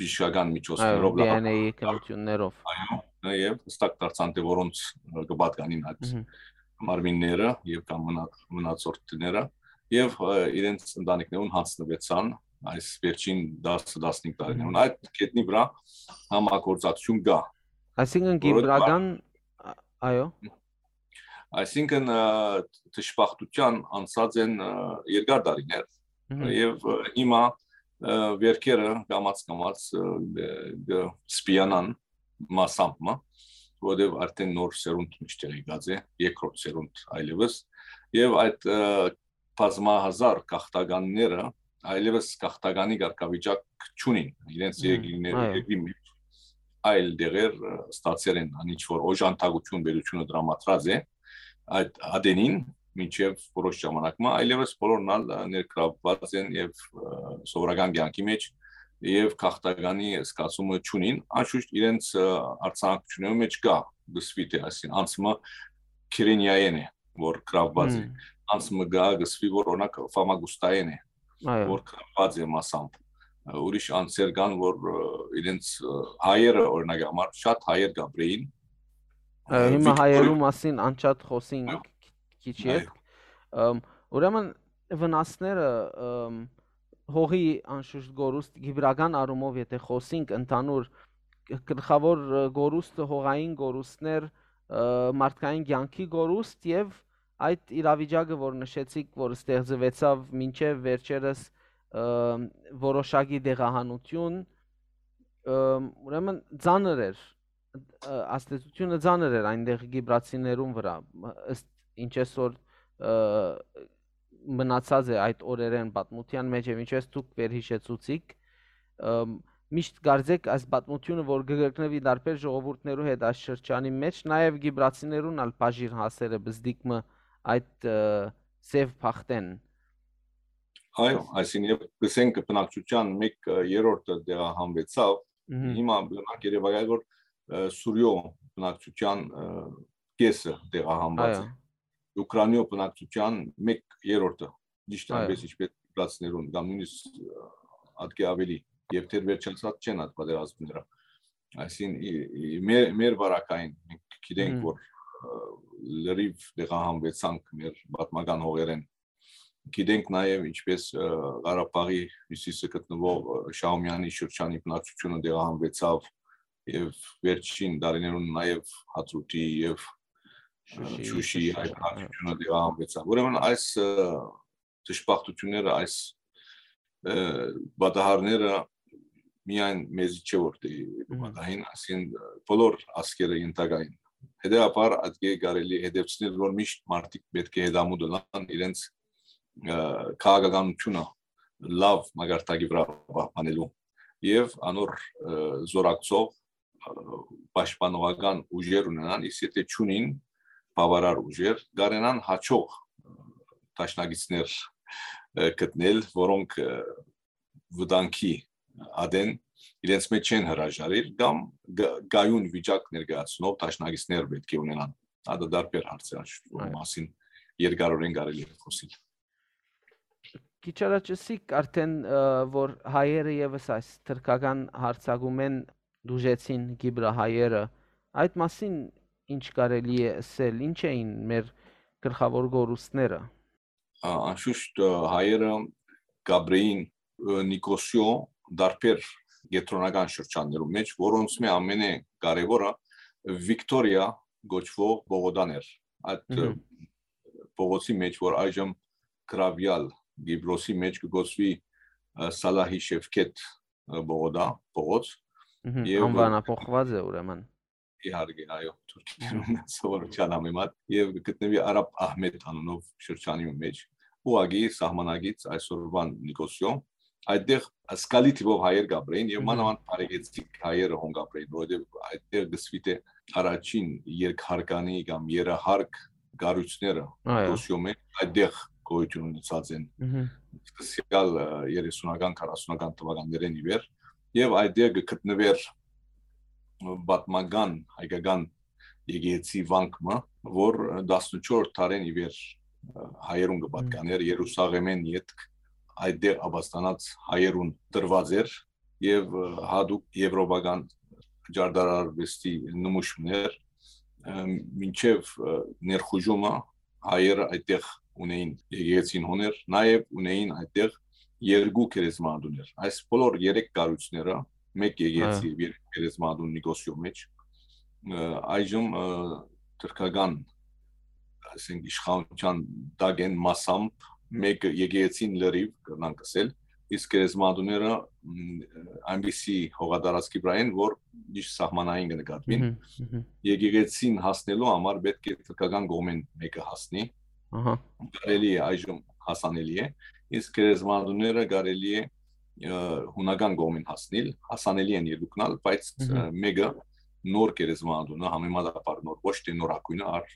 բժշկական Այո, միջոցներով, D N A լաբորատորիա, քննություններով։ այո, եւ հստակ դարձան, թե որոնց, ը, կը պատկանին այդ Մհմ։ մարմինները եւ կամ մնա-, մնացորդները, եւ, ը, իրենց ընտանիքներուն հանձնուեցան այս վերջին տասը, տասնհինգ տարիներուն։ Մհմ։ Այդ կետնի վրայ համագործակցություն կա, Այսինքն որովհետեւ կիպրական, ա-, այո։ Այսինքն, ը, դժբախտության անցած են, ը, երկար տարիներ, Մհմ։ եւ, ը, հիմա, ը, վերքերը կամաց-կամաց, ը, ը, կը սպիանան մասամբ մը, որովհետեւ արդեն նոր սերունդ միշտ եղած է, երկրորդ սերունդ այլեւս, եւ այդ, ը, բազմահազար գաղթականները այլեւս գաղթականի կարգավիճակ չունին, իրենց Մհմ, երկիրներ-, այո։ երկրի մեջ այլ դեղեր, ը, ստացեր են, ան ինչ որ օժանդակություն պետությունը դրամատրած է այդ ատենին, մինչեւ որոշ ժամանակ մը, այլեւս բոլորն ալ, ը, ներգրավված են եւ, ը, սովորական կյանքի մեջ եւ գաղթականի զգացումը չունին, անշուշտ իրենց, ը, արձանագրություններու մեջ կա, գսվի, թե այսին անցումը Քիրենիայեն է, որ գրաված է, Մհմ։ անցումը կա, գսվի, որ օրինակ Ֆամագուստայեն է, Այո։ որ գրաված է մասամբ, ը, ուրիշ անձեր կան, որ, ը, իրենց, ը, հայերը, օրինակ համար, շատ հայեր կապրեին, Այո, ը, հիմա Վիկտորի- հայերու մասին անջատ խոսենք Այո։ քիչ Այո։ ետք, ըմ, Ուրեմն վնասները, ըմ, հողի անշուշտ կորուստ, կիպրական առումով, եթե խոսենք ընդհանուր, գլխաւոր, ը, կորուստը, հողային կորուստներ, ը, մարդկային կյանքի կորուստ եւ այդ իրավիճակը, որ նշեցիք, որ ստեղծուեցաւ մինչեւ վերջերս, ը, որոշակի տեղահանութիւն, ը, ուրեմն ծանր էր, ը, ազդեցութիւնը ծանր էր այնտեղ կիպրացիներուն վրայ, ը, ըստ ինչ այսօր, ը, մնացած է այդ օրերէն պատմութեան մէջ եւ ինչպես դուք վերհիշեցուցիք, ըմ, միշտ կարծեք այս պատմութիւնը, որ կը կրկնուի տարբեր ժողովուրդներու հետ այս շրջանի մէջ, նաեւ կիպրացիներուն ալ բաժին հասերը բզդիկ մը այդ, ը, սեւ բախտեն։ Այո, այսինքն, եւ կսենք բնակչության մեկ, ը, երրորդը տեղահանուեցաւ, Մհմ։ հիմա բնակ երևակայ, որ, ը, Սուրիոյ բնակչության, ը, կեսը տեղահանուած Այո։ է։ Ուկրաինոյ բնակչության մեկ երրորդը, ճիշդ Այո։ այնպես ինչպես կիպրացիներուն, կամ նույնիսկ, ը, ատկէ ավելի, եւ դեռ վերջացած չեն այդ պատերազմները։ Այսինքն, ի, ի, մեր, մեր վարակային մենք գիտենք, Մհմ։ որ, ը, լրիվ տեղահանուեցանք մեր պատմական հողերէն։ Գիտենք նաեւ ինչպես, ը, Ղարաբաղի հիւսիսը գտնուող, ը, Շահումեանի շրջանի բնակչութիւնը տեղահանուեցաւ եւ վերջին տարիներուն նաեւ Հադրութի եւ, ը, Շուշիի Շուշիի շրջանը, այդ բնակչութիւնը տեղահանուեցաւ։ Ուրեմն այս, ը, դժբախտությունները, այս, ը, պատահարները միայն մեզի չէ որ դե Մհմ։ պատահին, այսինքն, ը, բոլոր ազգերը ենթակային։ Հետեւաբար, ատկէ կարելի է հետևցնել, որ միշտ մարդիկ պէտք է հետամուտ ըլլան իրենց, ը, քաղաքականութիւնը լաւ մակարդակի վրայ պահպանելու եւ անոր, ը, զորակցող, ը, պաշտպանողական ուժեր ունենան, իսկ եթե չունին բաւարար ուժեր, կարենան հաջող, ը, դաշնակիցներ, ը, գտնել, որոնք, ը, վտանգի ատեն իրենց մեջ չեն հրաժարիր կամ գ-, գայուն վիճակ ներկայացնող դաշնակիցներ պէտք է ունենան։ Ատը դարբեր հարց է, աշ-, որ Այո։ մասին երկարորեն կարելի է խոսիլ։ Քիչ առաջ ըսիք արդեն, ը, որ հայերը եւս այս թրքական հարձակումէն դուժեցին Կիպրահայերը։ Այդ մասին ինչ կարելի է ըսել, ինչ էին մեր գլխաւոր կորուստները։ Ա, անշուշտ, ը, հայերը կապրեին, ը, Նիկոսիոյ դարբեր կեդրոնական շրջաններու մէջ, որոնց մէ ամենէ կարեւորը Վիկտորիա կոչուող պողոտան էր։ Այդ, ը, Մհմ։ պողոցի մէջ, որ այժմ գրաւեալ Կիպրոսի մէջ կը կոչուի, ը, Սալահի Շեֆքետ, ը, պողոտա, պողոց, Մհմ, եւ անվանափոխված է ուրեմն։ Իհարկե, այո, թուրքերուն սովորութեան համեմատ, եւ կը գտնուի Արաբ Ահմետ անունով շրջանի մէջ, ուղղակի սահմանագից այսօրվան Նիկոսիոյ, այդտեղ զգալի թիվով հայեր կապրեին եւ Մհմ։ մանավանդ բարեգեցիկ հայերը հոն կապրեին, որովհետեւ այդտեղ կսվի թէ առաջին երկհարկանի կամ երահարկ կառույցները Այո։ Նիկոսիոյ մէջ այդտեղ գոյութիւն ունեցած են Մհմ։ սկսեալ, ը, երեսունական, քառասունական թվականներէն ի վեր, եւ այդտեղ կը գտնուէր պատմական հայկական եկեղեցի վանք մը, որ տասնչորս դարէն ի վեր, ը, հայերուն կը պատկանէր, Երուսաղեմէն ետք այդտեղ ապաստանած հայերուն տրուած էր, եւ, ը, յատուկ եվրոպական ճարտարարուեստի նմուշ մըն էր, ը, մինչեւ, ը, ներխուժումը հայերը այդտեղ ունեին եկեղեցին հոն էր, նաեւ ունեին այդտեղ երկու գերեզմանատուներ։ Այս բոլոր երեք կառույցները, մեկ եկեղեցի Հա։ եւ երեք գերեզմանատուն Նիկոսիոյ մէջ, ը, այժմ, ը, թրքական, ասենք, իշխանության տակ են մասամբ, մեկը եկեղեցին լրիվ, կրնանք ասել, իսկ գերեզմանատուները, մ, այնպիսի հողատարածքի վրայ են, որ միշտ սահմանային կը նկատուին։ Մհմ, մհմ։ Եկեղեցին հասնելու համար պէտք է թրքական կողմէն մեկը հասնի։ Ահա։ Կարելի է այժմ հասանելի է, իսկ գերեզմանատուները կարելի է, ը, հունական կողմէն հասնիլ, հասանելի են երկուքն ալ, բայց, Մհմ։ ը, մեկը նոր գերեզմանատունը, համեմատաբար նոր, ոչ թե նորագույնը, առ-,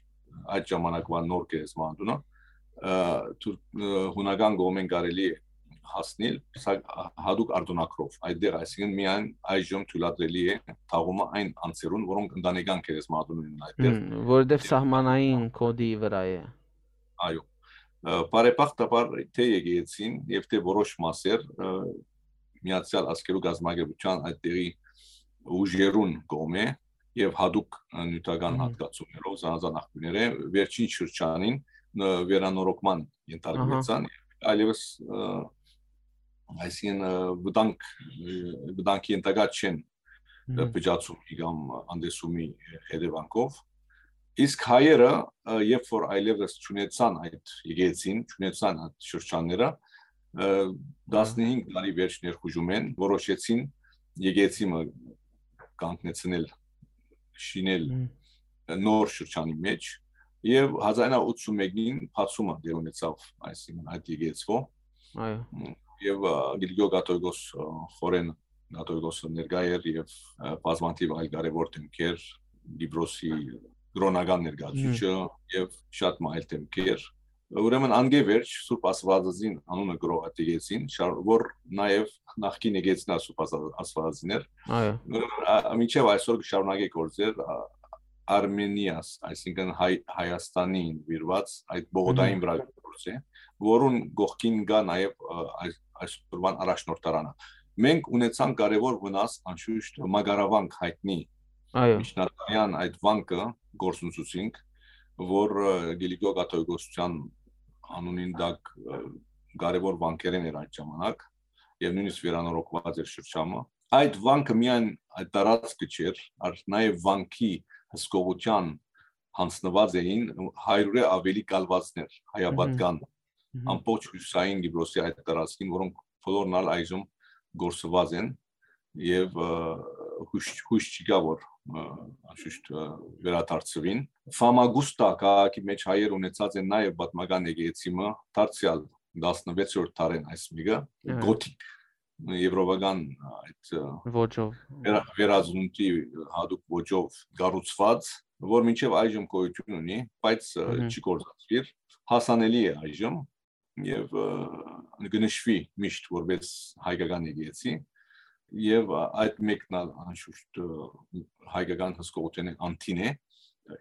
այդ ժամանակվա նոր գերեզմանատունը, ը, թուր-, ը, հունական կողմէն կարելի է հասնիլ, սա-, հատուկ արտոնագրով։ Այդտեղ, այսինքն, միայն այժմ թույլատրելի է թաղումը այն անձերուն, որոնք ընտանեկան գերեզմանատուն ունեն այդտեղ։ Հմ, որովհետև Եվ սահմանային կոդի վրա է։ Այո։ Ը, բարեբախտաբար, թե եկեղեցին և թե որոշ մասեր, ը, Միացյալ Ազգերու կազմակերպության այդտեղի ուժերուն կողմէ և հատուկ, ը, նյութական Մհմ։ հատկացումներով, զանազան աղբիւրներէ, վերջին շրջանին ն-, վերանորոգման ենթարկուեցան, այլևս, ը, այսինքն, ը, վտանգ, ը, վտանգի ենթակա չեն, ը, Մհմ։ փճացումի կամ անտեսումի հետևանքով։ Իսկ հայերը, ը, երբ որ այլևս չունեցան այդ եկեղեցին, չունեցան այդ շրջանները, ը, Ահա։ տասնհինգ տարի վերջ ներխուժում են, որոշեցին եկեղեցի մը կանգնեցնել, շինել Մհմ։ նոր շրջանի մեջ, եւ հազար ինը ութսունմեկին բացումը դեր ունեցավ, այսինքն, այդ եկեղեցվո։ Այո։ Եւ, ը, Կիլիկիո կաթողիկոս, ը, Խորեն կաթողիկոսը ներկայ էր, եւ, ը, բազմաթիվ այլ կարեւոր դեմքեր, Կիպրոսի կրօնական ներկայացուցիչը Մհմ։ եւ շատ մը այլ դեմքեր։ Ուրեմն, անկէ վերջ Սուրբ Աստվածածին անունը գրող այդ եկեղեցին, շար-, որ նաեւ նախկին եկեղեցին ա Սուրբ Աստված-, Աստվածածին էր։ Այո։ Ուրեմն, ա, մինչեւ այսօր կը շարունակէ գործեր, ա, Արմենիաս, այսինքն, Հայ-, Հայաստանին նուիրուած այդ բողոքային Մհմ։ վրայ գործ է, որուն կողքին կա նաեւ, ը, այս-, այսօրվան առաջնորդարանը։ Մենք ունեցանք կարեւոր վնաս, անշուշտ, մակարավանք հայտնի Այո։ միջնադարյան այդ վանքը գործունեացուցինք, որ, ը, Կիլիկիո կաթողիկոսության անունին տակ, ը, կարեւոր վանքերէն էր այդ ժամանակ, եւ նոյնիսկ վերանորոգուած էր շրջանը։ Այդ վանքը միայն այդ տարածքը չէր, այլ նաեւ վանքի հսկողութեան յանձնուած էին հարիւրէ ավելի կալուածներ, Մհմ։ հայապատկան, Մհմ։ ամբողջ հիւսային Կիպրոսի այդ տարածքին, որոնք բոլորն ալ այժմ գործուած են, եւ, ը, յոյս, յոյս չկայ, որ, ը, անշուշտ, ը, վերադարձուին։ Ֆամագուստա քաղաքի մեջ հայեր ունեցած են նաեւ պատմական եկեղեցի մը, դարձեալ տասնվեցերորդ դարէն այս մեկը, Ահա։ գոթիկ, եվրոպական այդ, ը, Ոճով։ վերա-, վերածնունդի յատուկ ոճով կառուցուած, որ մինչեւ այժմ գոյություն ունի, բայց, ը, Մհմ։ չի գործածուիր, հասանելի է այժմ, եւ, ը, կը նշուի միշտ որպես հայկական եկեղեցի, եւ, ա, այդ մեկն ալ անշուշտ, ը, հայկական հսկողութենէ անդին է։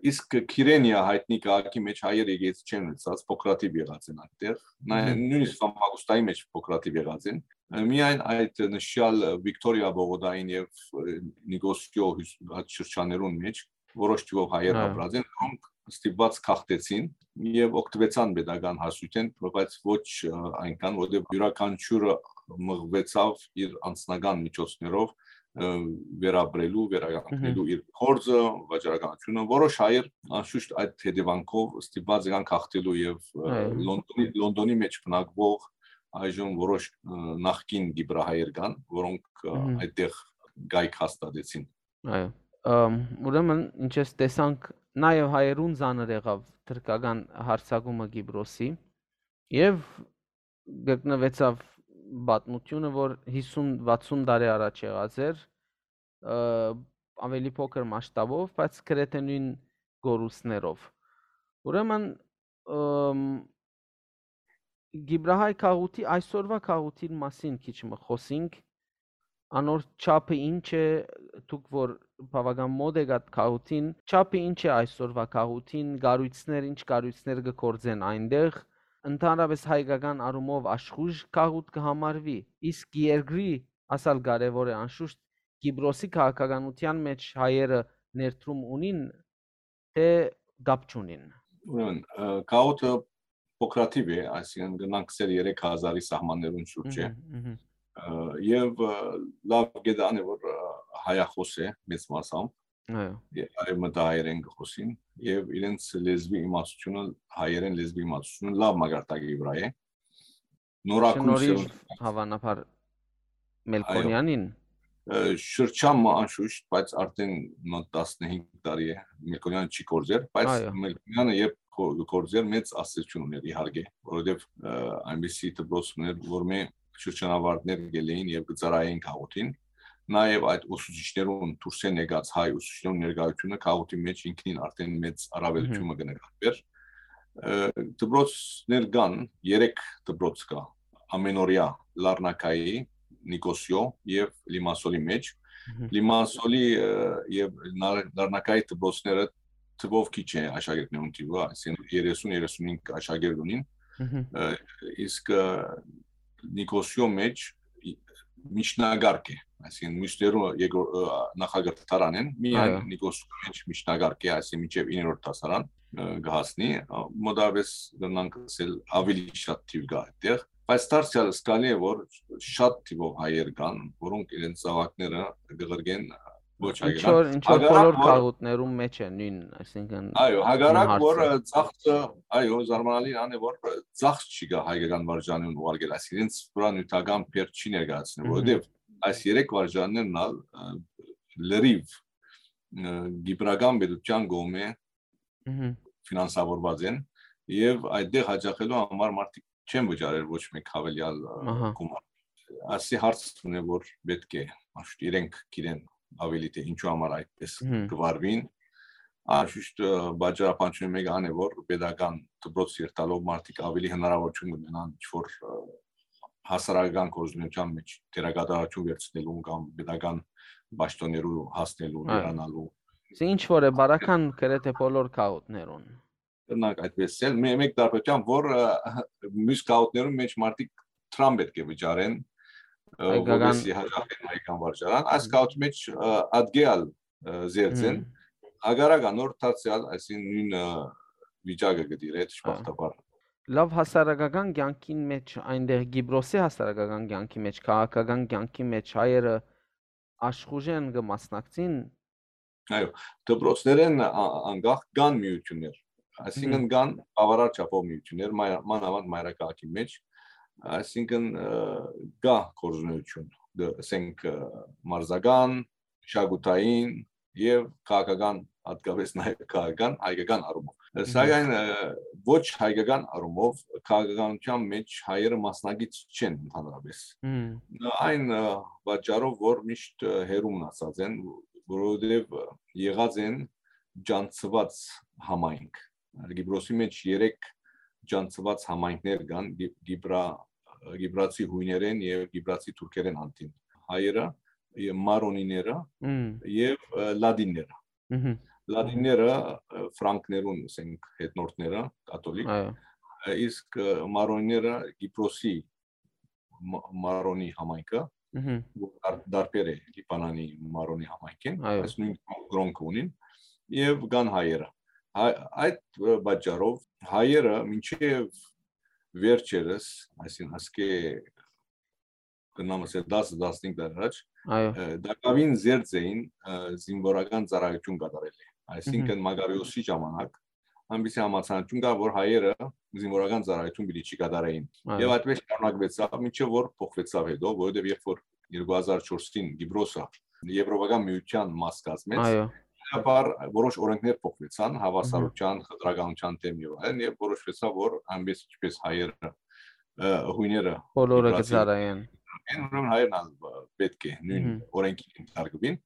Իսկ Քիրենիա հայտնի քաղաքի մեջ հայեր եկեղեցի չեն ունեցած, փոքրաթիվ եղած են այդտեղ։ Նա-, Մհմ։ նոյնիսկ Ֆամագուստայի մեջ փոքրաթիվ եղած են։ Ը, միայն այդ նշյալ Վիկտորիա Բողոդային եւ, ը, Նիկոսիո հյուս-, այդ շրջաններուն մեջ որոշ թիվով հայեր Հա։ ապրած են, որոնք ստիպված գաղթեցին եւ օգտվեցան պետական հասույթէն, բայց ոչ, ը, այնքան, որտեղ իւրաքանչիւրը մղուեցաւ իր անձնական միջոցներով, ը, վերապրելու, վերականգնելու Մհմ։ իր գործը, վաճառականությունը։ Որոշ հայեր, անշուշտ, այդ հետեւանքով ստիպված եղան գաղթելու եւ, ը, Այո։ Լոնդոնի, Լոնդոնի մեջ բնակվող այժմ որոշ, ը, նախկին կիպրահայեր կան, որոնք, ը, Մհմ։ այդտեղ կայք հաստատեցին։ Այո։ Ըմ, ուրեմն, ինչպես տեսանք, նաեւ հայերուն ծանր եղաւ թրքական հարձակումը Կիպրոսի եւ գտնուեցաւ պատմությունը, որ հիսուն վաթսուն տարի առաջ եղած էր, ը, ավելի փոքր մասշտաբով, բայց գրեթէ նոյն կորուստներով։ Ուրեմն, ըմ, Կիպրահայ քաղուտի, այսօրվա քաղուտին մասին քիչ մը խօսինք, անոր չափը ինչ է, դուք որ բաւական մօտ եք այդ քաղուտին, չափը ինչ է այսօրվա քաղուտին, կառոյցներ, ինչ կառոյցներ կը գործեն այնտեղ, ընդհանրապես հայկական առումով աշխուժ քաղուտ կը համարվի, իսկ երկրի, ասալ կարեւոր է անշուշտ, Կիպրոսի քաղաքականութեան մեջ հայերը ներդրում ունին, թէ կապ չունին։ Ուրեմն, ը, քաղուտը փոքրաթիվ է, այսինքն, կնանք սեր երեք հազարի սահմաններուն շուրջ է։ Մհմ, մհմ։ Ը, եւ, ը, լաւ գիտան է, որ, ը, հայախոս է մեծ մասամբ, Այո։ ե-, արեւմտահայերեն կը խօսին, եւ իրենց լեզվի իմացությունը, հայերեն լեզվի իմացությունը լաւ մակարդակի վրայ է։ Նորագույն Շնորհիվ սերունդ հավանաբար Այո։ Մելքոնյանին։ Ը, շրջան մը անշուշտ, բայց արդեն մոտ տասնհինգ տարի է Մելքոնյանը չի գործեր, բայց Այո։ Մելքոնյանը երբ գո-, գործեր, մեծ ազդեցություն ուներ, իհարկե, որովհետեւ, ը, այնպիսի դպրոց ուներ, որ մէ շրջանավարտներ գելեին եւ կը ծառայեին քաղուտին, նաեւ այդ ուսուցիչներուն, դուրսէն եկած հայ ուսուցիչներուն ներկայությունը քաղուտի մեջ ինքնին արդեն մեծ առավելություն Մհմ։ մը կը նկատվեր։ Ը, դպրոցներ կան, երեք դպրոց կա, ամենօրյա Լարնակայի, Նիկոսիո եւ Լիմասոլի մեջ։ Մհմ։ Լիմասոլի, ը, եւ Նար-, Լարնակայի դպրոցները թվով քիչ է աշակերտներուն թիվը, այսինքն երեսուն երեսունհինգ աշակերտ ունին, Մհմ։ ը, իսկ, ը, Նիկոսիո մեջ ի-, միջնակարգ է, այսինքն, մյուսներու երկրորդ, ը, նախակրթարանեն, միայն Այո։ Նիկոս Սուրմեջ միջնակարգ է, այսինքն, մինչեւ իններորդ դասարան, ը, կհասնի, ը, մոտավորապես կրնանք ասել ավելի շատ թիվ կա այդտեղ, բայց դարձեալ զգալի է, որ շատ թիվով հայեր կան, որոնք իրենց զաւակները կղրկեն ոչ Ինչ հայկական։ որ, ինչ որ Հակառակ բոլոր որ- գաղութներում մեջ է նույն, այսինքն Այո, հակառակ նույն որ, հարցը։ ը, ծախսը, այո, զարմանալի ան է, որ, ը, ծախս չի գա հայկական վարժանին ուղարկել, այսինքն, իրենց վրան նյութական բերք չի ներկայացնում, Մհմ։ որովհետև այս երեք վարժաններն ալ, ը, լրիվ, ը, կիպրական պետության կողմէ Մհմ։ ֆինանսավորված են, եւ այդտեղ հաճախելու համար մարդիկ չեն վճարել ոչ մեկ հավելյալ, ը, Ահա։ գումար։ Ասի հարց ունի, որ պետք է, միշտ իրենք գիտեն ավելի, թե ինչու համար այդպես Մհմ։ կվարվին։ Անշուշտ, ը, պատճառաբանությունը մեկը ան է, որ պետական դպրոց երթալով մարդիկ ավելի հնարավորություն կունենան ինչ-որ, ը, հասարակական գործունեության մեջ դերակատարություն վերցնելու կամ պետական պաշտոններու հասնելու, Այո։ վերանալու։ Սա ինչ որ է բարական գրեթե բոլոր գաղութներուն։ Կրնանք այդպես ասել, մե-, մեկ տարբերությամբ, որ, ը, մյուս գաղութներուն մեջ մարդիկ դրամ պետք է վճարեն, ը, Հայկական- որպեսզի հաճախեն հայկական վարժարան, այս գաղութի մեջ, ը, ատկեալ, ը, զերծ են, Մհմ։ հակառակ անոր դարձեալ, այսինքն, նույն, ը, վիճակը կդիրե, դժբախտաբար։ Լավ, հասարակական կյանքին մեջ, այնտեղ Կիպրոսի հասարակական կյանքի մեջ, քաղաքական կյանքի մեջ հայերը աշխուժեն կը մասնակցին։ Այո, դպրոցներէն ա-, անկախ կան միութիւններ, այսինքն, Մհմ։ կան բավարար չափով միութիւններ, մայր-, մանաւանդ մայրաքաղաքի մեջ, այսինքն, ը, կա գործունեություն, դ-, ասենք, ը, մարզական, մշակութային եւ քաղաքական, հատկապես նաեւ քաղաքական, հայկական առումով։ Մհմ։ Սակայն, ը, ոչ հայկական առումով քաղաքականության մեջ հայերը մասնակից չեն ընդհանրապես։ Մհմ։ Այն, ը, պատճառով, որ միշտ, ը, հեռու մնացած են, որովհետեւ, ը, եղած են ջանցուած համայնք։ Կիպրոսի մեջ երեք ջանցուած համայնքներ կան, Կի-, Կիպրա-, Կիպրացի հույներեն եւ Կիպրացի թուրքերեն անդին։ Հայերը, ե-, մարոնիները Մհմ։ եւ, ը, լատինները։ Մհմ։ Լատինները, ը, ֆրանկներուն, ասենք, հետնորդները, կաթոլիկ, Այո։ ը, իսկ, ը, մարոնիները Կիպրոսի մա-, մարոնի համայնքը, Մհմ։ որ դար-, դարբեր է Լիբանանի մարոնի համայնքին, Այո։ այս նույն կրոնքը ունին, եւ կան հայերը։ Հայ-, այդ, ը, պատճառով հայերը մինչեւ վերջերս, այսինքն, ասկէ, կրնամ ասել, տասը, տասնհինգ տարի առաջ, Այո։ ը, տակաւին զերծ էին, ը, զինվորական ծառայություն կատարել է։ Այսինքն, Մհմ։ Մագարիոսի ժամանակ այնպիսի համաձայնություն կար, որ հայերը զինվորական ծառայություն պիտի չի կատարեին։ Այո։ Եվ այդպես շարունակվեցավ, մինչեւ որ փոխվեցավ հետո, որովհետեւ երբ որ երկու հազար չորսին Կիպրոսը Եվրոպական միության մաս կազմեց, Այո։ բնականաբար որոշ օրենքներ փոխվեցան, հավասարության, խտրականության դեմ եւ այլն, եւ որոշվեցավ, որ այնպես ինչպես հայերը, ը, հույները Բոլորը Կիպրացի կծառայեն։ են, ուրեմն հայերն ալ, ը, պետք է նույն Մհմ։ օրենքին ենթարկվին։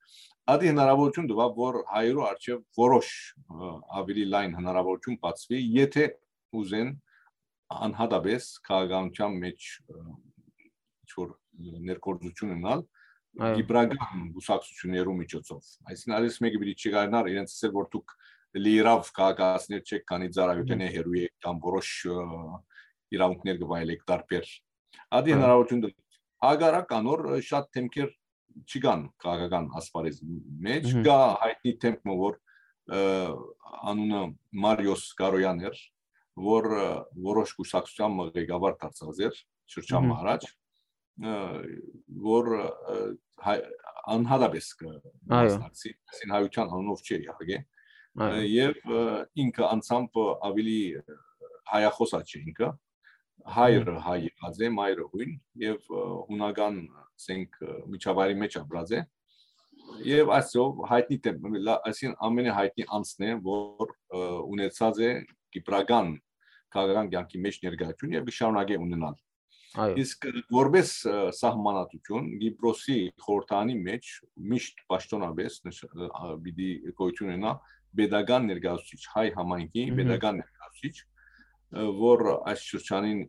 Ադի հնարավորություն տուաւ, որ հայերու առջեւ որոշ, ը, ավելի լայն հնարավորություն բացվի, եթե ուզեն անհատապես քաղաքականության մեջ, ը, ինչ-որ ներգործություն ունենալ Այո։ կիպրական կուսակցություններու միջոցով։ Այսինքն, այս մեկը պիտի չկարենար իրենց ասել, որ դուք լիիրաւ քաղաքացիներ չեք, քանի ծառայութենէ հեռու եք կամ որոշ, ը, իրավունքներ կվայելեք տարբեր։ Ադի Այո։ հնարավորություն տուաւ։ Հակառակ անոր, ը, շատ դեմքեր չկան քաղաքական ասպարեզի մեջ, Մհմ։ կա հայտնի դեմք մը, որ, ը, անունը Մարիոս Կարոյան էր, որ, ը, որոշ կուսակցության մը ղեկավար դարձած էր շրջան Մհմ։ մը առաջ, ը, որ, ը, հայ-, անհատապես կը Այո։ մասնակցի, այսինքն հայության անունով չէ իհարկե, ը, Այո։ եւ, ը, ինքը անձամբ ավելի, ը, հայախոս ա չէ ինքը, հայրը հայ եղած է, մայրը հույն, եւ, ը, հունական, ասենք, ը, միջավայրի մեջ ապրած է, եւ այսով հայտնի դեմ-, լա-, այսինքն ամենահայտնի անձն է, որ, ը, ունեցած է կիպրական քաղաքական կյանքի մեջ ներկայություն եւ կը շարունակե ունենալ։ Այո։ Իսկ որպես, ը, սահմանադրություն, Կիպրոսի խորհրդանի մեջ միշտ պաշտոնապես նշ-, ը, ա, պիտի գոյություն ունենա պետական ներկայացուցիչ, հայ համայնքի Մհմ։ պետական ներկայացուցիչ, ը, որ այս շրջանին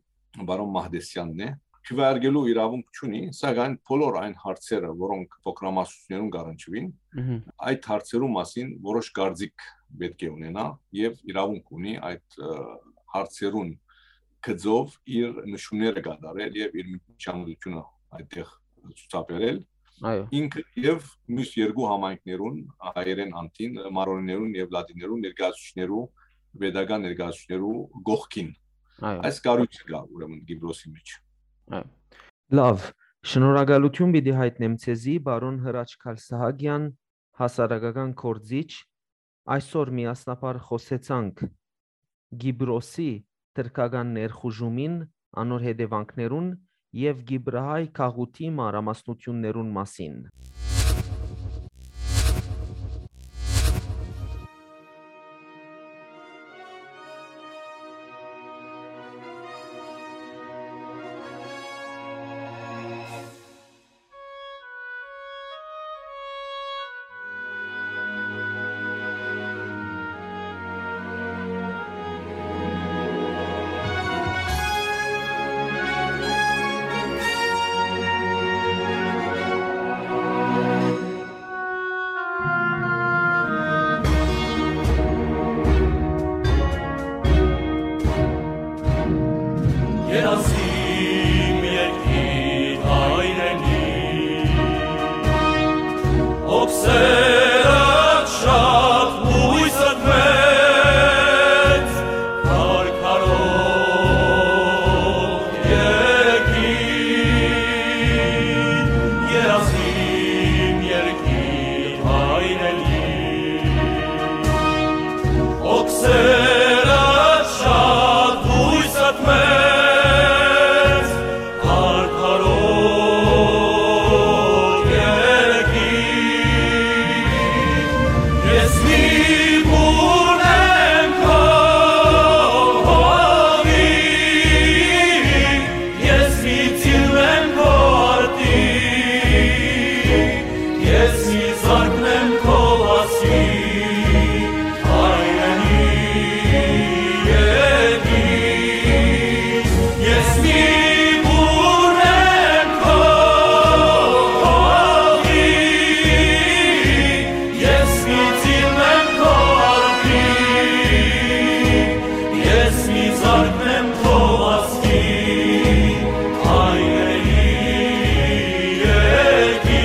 բարոն Մահդեսյանն է, քվեարկելու իրավունք չունի, սակայն բոլոր այն հարցերը, որոնք փոքրամասնություններուն կառնչվին, Մհմ։ այդ հարցերու մասին որոշ կարծիք պետք է ունենա եւ իրավունք ունի այդ, ը, հարցերուն գծով իր նշումները կատարել եւ իր միջամտությունը այդտեղ ցուցաբերել։ Այո։ Ինքը եւ մյուս երկու համայնքներուն, հայերեն անտին, մարոնիներուն եւ լատիներուն ներկայացուցիչներու, պետական ներկայացուցիչներու կողքին։ Այո։ Այս կառոյցը կայ, ուրեմն, Կիպրոսի մէջ։ Այո։ Լավ, շնորհակալութիւն պիտի յայտնեմ ձեզի, պարոն Հրաչ Քալսահակեան, հասարակական գործիչ, այսօր միասնաբար խօսեցանք Կիպրոսի թրքական ներխուժումին, անոր հետեւանքներուն եւ կիպրահայ գաղութի մանրամասնութիւններուն մասին։ Երազիմ երկիր հայրենի, օքսերդ շատ, յուստ մեծ, քարքարոտ երկիր, երազիմ երկիր հայրենի, օքսերդ շատ, յուստ մեծ, քարքարոտ երկիր, ես մի բուռն եմ քո հողի, ես մի ծիլ եմ քո արտի, ես մի զարկ եմ քո վազքի, հայրենի երկիր, ես մի բուռն եմ քո հողի, ես մի ծիլ եմ քո արտի, ես մի զարկ եմ քո վազքի, հայրենի երկիր,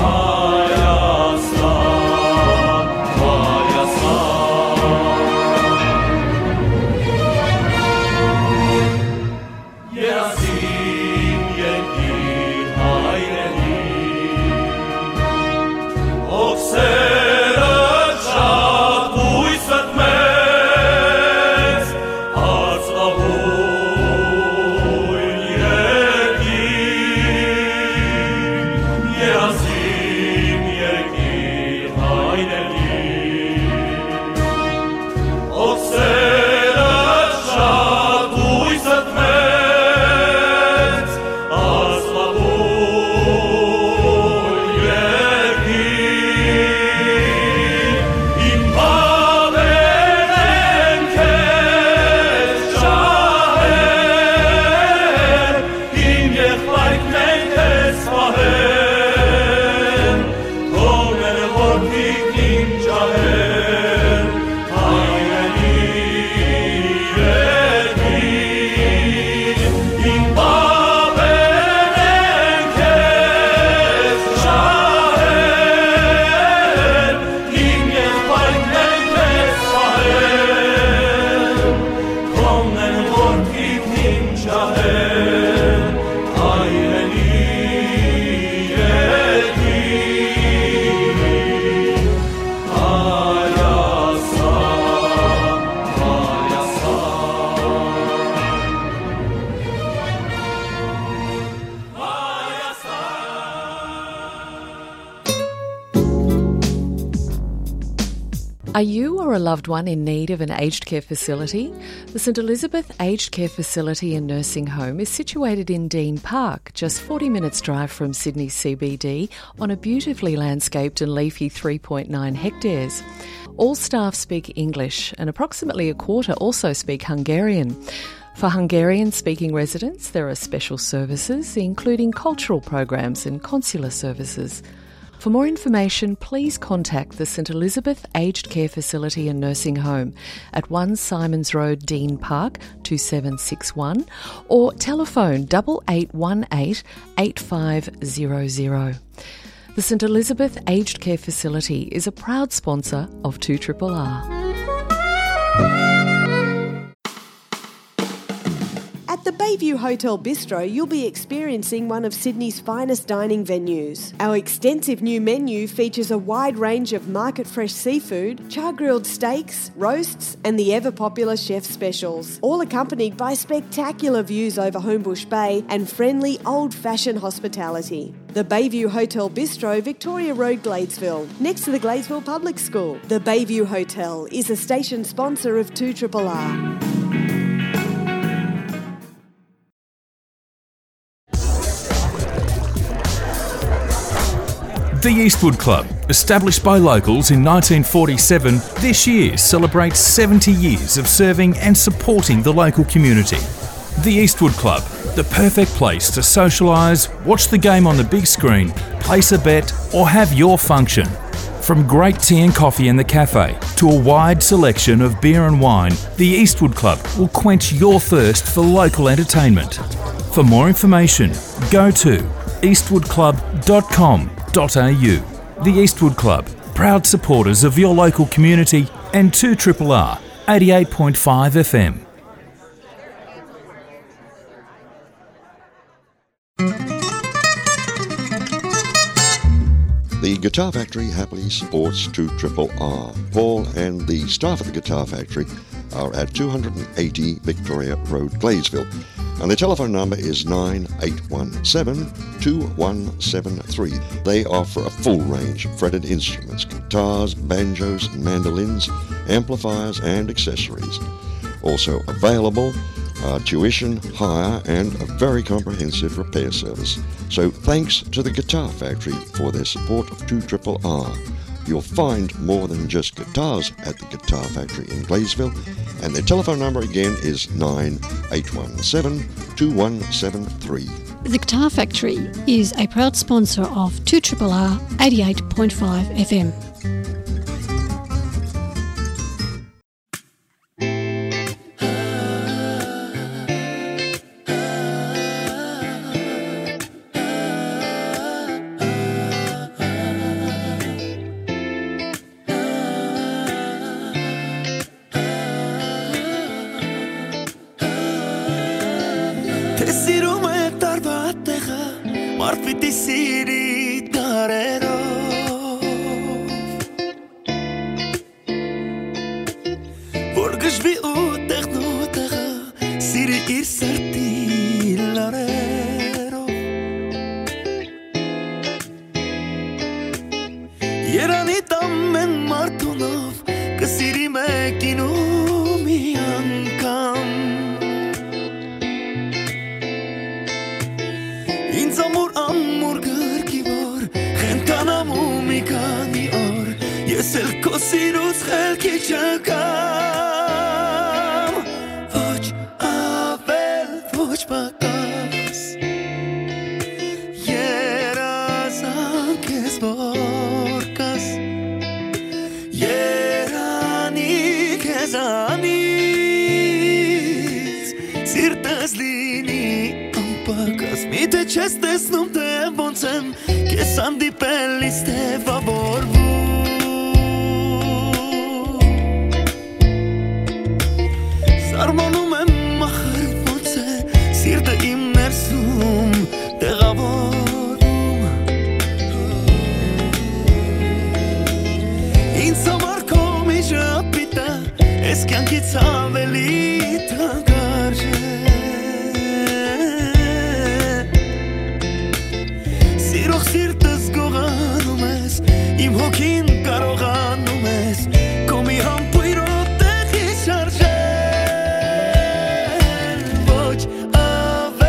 Հայաստան, Հայաստան։ Երազին երկիր հայրենի, օքսերը շատ, յուստ մեծ, արծաւուն երկիր, երազին երկիր հայրենի, օքսերը շատ, յուստ մեծ, արծաւուն երկիր, իմ պապերն են քեզ ջահել, իմ եղբայրքն են քեզ պահել, քո մերը որդիքն իմ ջահել, հայրենի երկիր, իմ պապերն են քեզ ջահել, իմ եղբայրքն են քեզ պահել, քո մերը որդիքն իմ ջահել, հայրենի երկիր, Հայաստան, Հայաստան, Հայաստան։ Are you or a loved one in need of an aged care facility? The St Elizabeth Aged Care Facility and Nursing Home is situated in Dean Park, just forty minutes' drive from Sydney C B D, on a beautifully landscaped and leafy three point nine hectares. All staff speak English, and approximately a quarter also speak Hungarian. For Hungarian-speaking residents, there are special services, including cultural programs and consular services. For more information, please contact the St Elizabeth Aged Care Facility and Nursing Home at one Symonds Road, Dean Park, two seven six one, or telephone double eight one eight eight five zero zero. The St Elizabeth Aged Care Facility is a proud sponsor of two triple R. At the Bayview Hotel Bistro, you'll be experiencing one of Sydney's finest dining venues. Our extensive new menu features a wide range of market fresh seafood, char grilled steaks, roasts, and the ever popular chef specials, all accompanied by spectacular views over Homebush Bay and friendly old fashioned hospitality. The Bayview Hotel Bistro, Victoria Road, Gladesville, next to the Gladesville Public School. The Bayview Hotel is a station sponsor of two triple R. The Eastwood Club, established by locals in nineteen forty-seven, this year celebrates seventy years of serving and supporting the local community. The Eastwood Club, the perfect place to socialise, watch the game on the big screen, place a bet, or have your function. From great tea and coffee in the cafe to a wide selection of beer and wine, the Eastwood Club will quench your thirst for local entertainment. For more information, go to eastwood club dot com dot a u. The Eastwood Club, proud supporters of your local community and two triple R, eighty-eight point five F M. The Guitar Factory happily supports two triple R. Paul and the staff at the Guitar Factory are at two hundred and eighty Victoria Road, Gladesville. And the telephone number is nine eight one seven, two one seven three. They offer a full range of fretted instruments, guitars, banjos, mandolins, amplifiers, and accessories. Also available are tuition, hire, and a very comprehensive repair service. So thanks to the Guitar Factory for their support of two triple R. You'll find more than just guitars at the Guitar Factory in Gladesville, and their telephone number again is nine eight one seven, two one seven three. The Guitar Factory is a proud sponsor of two triple R, eighty-eight point five F M. Թէ սիրում է տարուա տեղը, մարդ պիտի սիրի դարերով։ Որ գժվի ու տեղն ու տեղը, սիրի իր սրտի լարերով։ Երանի տամ են մարդունով, կը սիրի մեկին ու մի անգամ։ Ինձ ամուր, ամուր գրկի որ, խենթանամ ու մի քանի օր, ես էլ քո սիրուց խելքի չգամ։ Ոչ ավել, ոչ պակաս, երազանք ես որ կաս, երանի քեզանից, սիրտս լինի անպակաս, միթե չես տեսնում, թե ոնց եմ քեզ հանդիպելիս թեւավորվում։ Սարմանում եմ ախր ոնց է սիրտը իմ ներսում տեղավորում։ Ինձ համար քո միջապիտը էս կյանքից ավելի թանկարժ է։ Սիրող սիրտս գողանում ես, իմ հոգին կարողանում ես քո մի համբույրով տեղի շարժել։ Ոչ ավ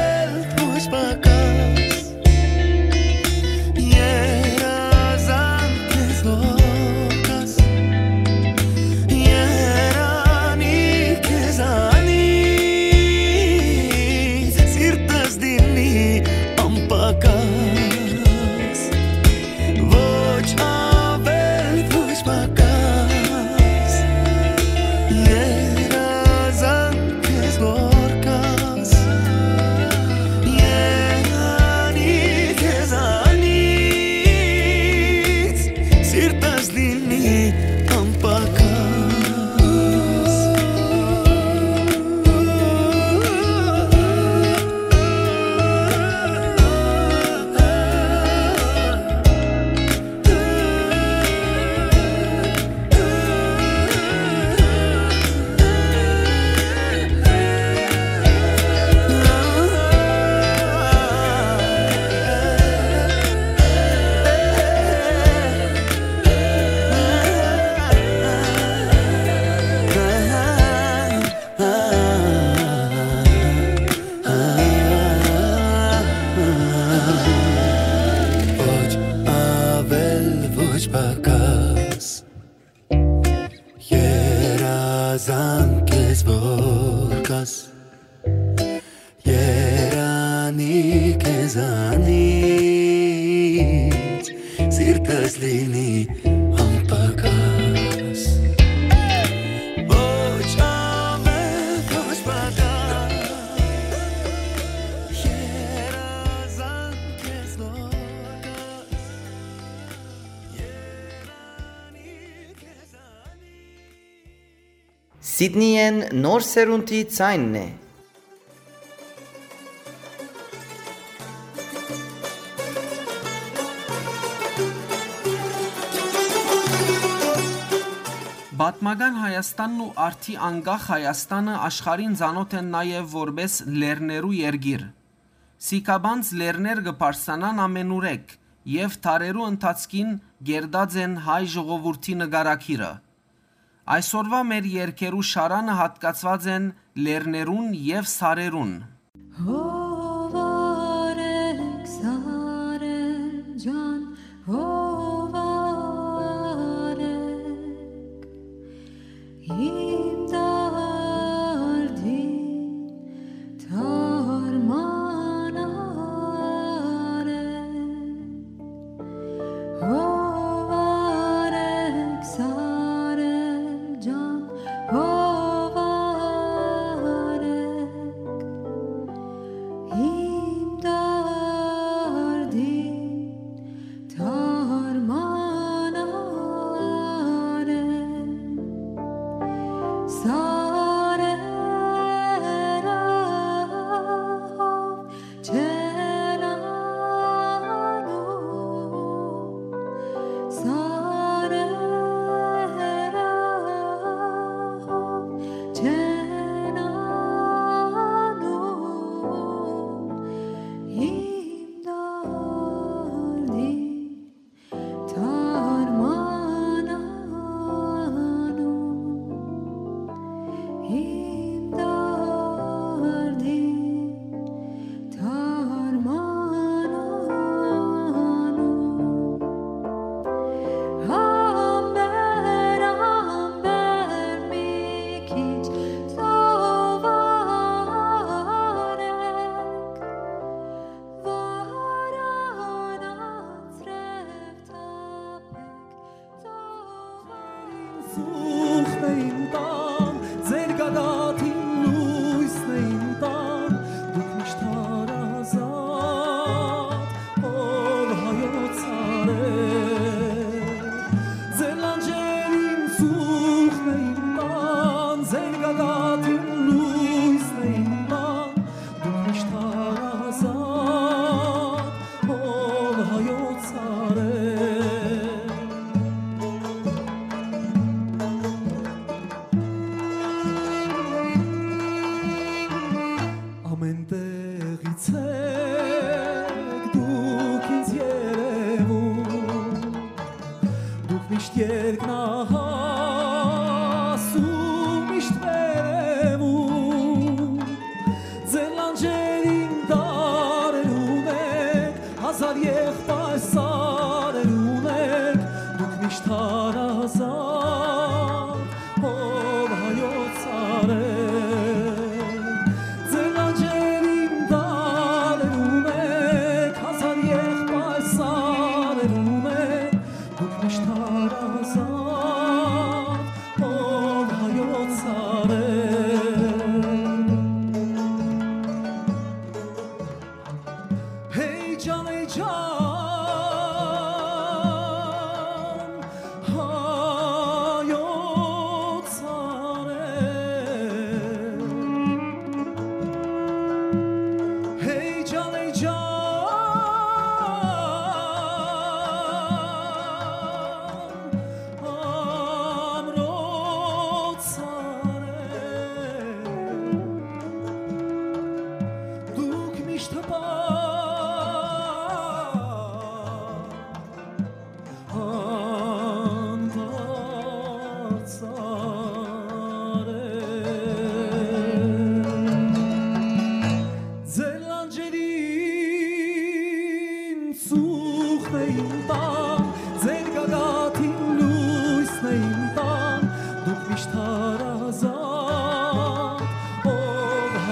Երանի քեզանից, սիրտս լինի անպակաս։ Ոչ ավել, ոչ պակաս, երազանք քեզ նոր կաս։ Սիդնիեն նոր սերունդի ձայնն է։ Պատմական Հայաստանն ու արդի անկախ Հայաստանը աշխարհին ծանօթ են նաեւ որպէս լեռներու երկիր։ Սիքաբանց լեռներ կը բարձրանան ամենուրեք եւ դարերու ընթացքին կերտած են հայ ժողովուրդի նկարագիրը։ Այսօրուայ մեր երկերու շարանը յատկացուած են լեռներուն եւ սարերուն։ Հովարեք, սարեր ջան, հովարեք, իմ դարդին դարման արեք։ Հովարեք, սարեր ջան, հովարեք,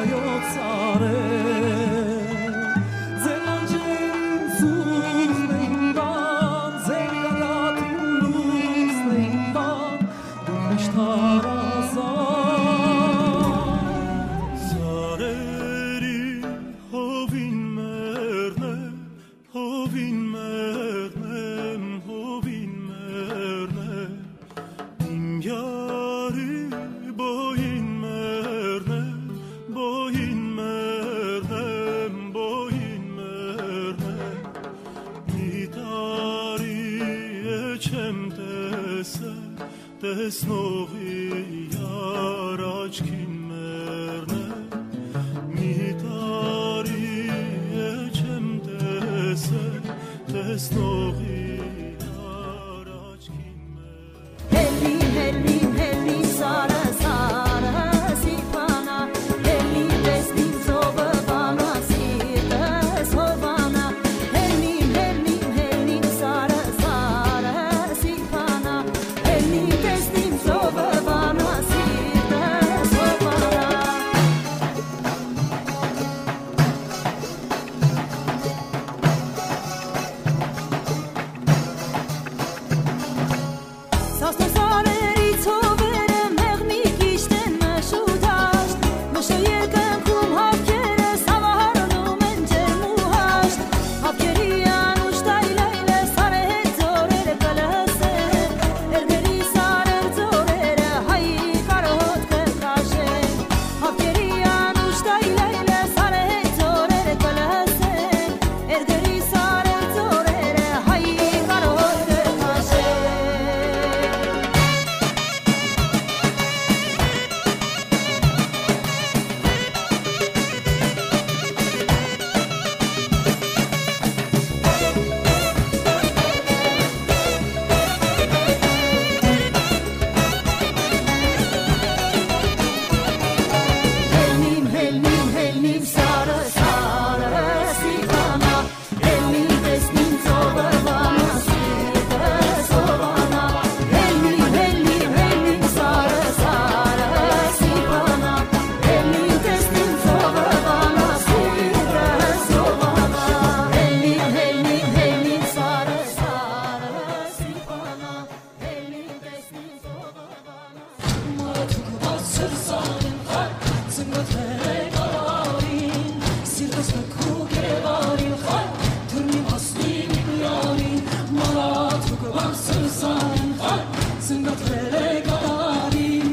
Հայոց արեւ, ձեր լանջերին սուսն են տան, ձեր գագաթին լուսն են տան, դու միշտ հարազատ։ Սարերին հովին մեռնեմ, հովին մեռնեմ, հովին մեռնեմ, իմ յարի բոյին մեռնեմ, բոյին մեռնեմ, բոյին մեռնեմ, մի տարի է չեմ տեսել, տեսնողի յար աչքին մեռնեմ, մի տարի է չեմ տեսել, տեսնողի յար աչքին մեռնեմ։ Հելնին, հելնին, հելնին, սարը, սարը, սիփանա, հելնին, տեսնին, ծովը վանա, սիրտս հովանա, հելնին, հելնին, հելնին, սարը, սարը, սիփանա, հելնին, տեսնին, ծովը վանա, սիրտս հովանա։ Սաստոր սարերի ծովերը մեղմի կիշտ են մշուտաշտ, մշը երկնքում հապկերը սավահարնում են ջերմ ու հաշտ։ Հապկերի անուշ տայլայլը սարը հետ ձորերը կը լսեն, էրգերի սարեր ձորերը հայի կարհոտ կը քաշեն։ Հապկերի անուշ տայլայլը սարը հետ ձորերը կը լսեն, էրգերի սարեր ձորերը հայի կարհոտ կը քաշեն։ Հելնին, հելնին, հելնին, սարը, սարը, սիփանա, հելնին, տեսնին, ծովը վանա, սիրտս հովանա, հելնին, հելնին, հելնին, սարը, սարը, սիփանա, հելնին, տեսնին, ծովը վանա, սիրտս հովանա, հելնին, հելնին, հելնին, սարը, սարը, սիփանա, հելնին, տեսնին, ծովը վանա։ Մարդուկ բարձր սանին խայ, ծնկոթ մերե կալարին, սիրտս կքու կերարին խայ, թուրմի մասնին իմ յարին։ Մարդուկ բարձր սանին խայ, ծնկոթ մերե կալարին,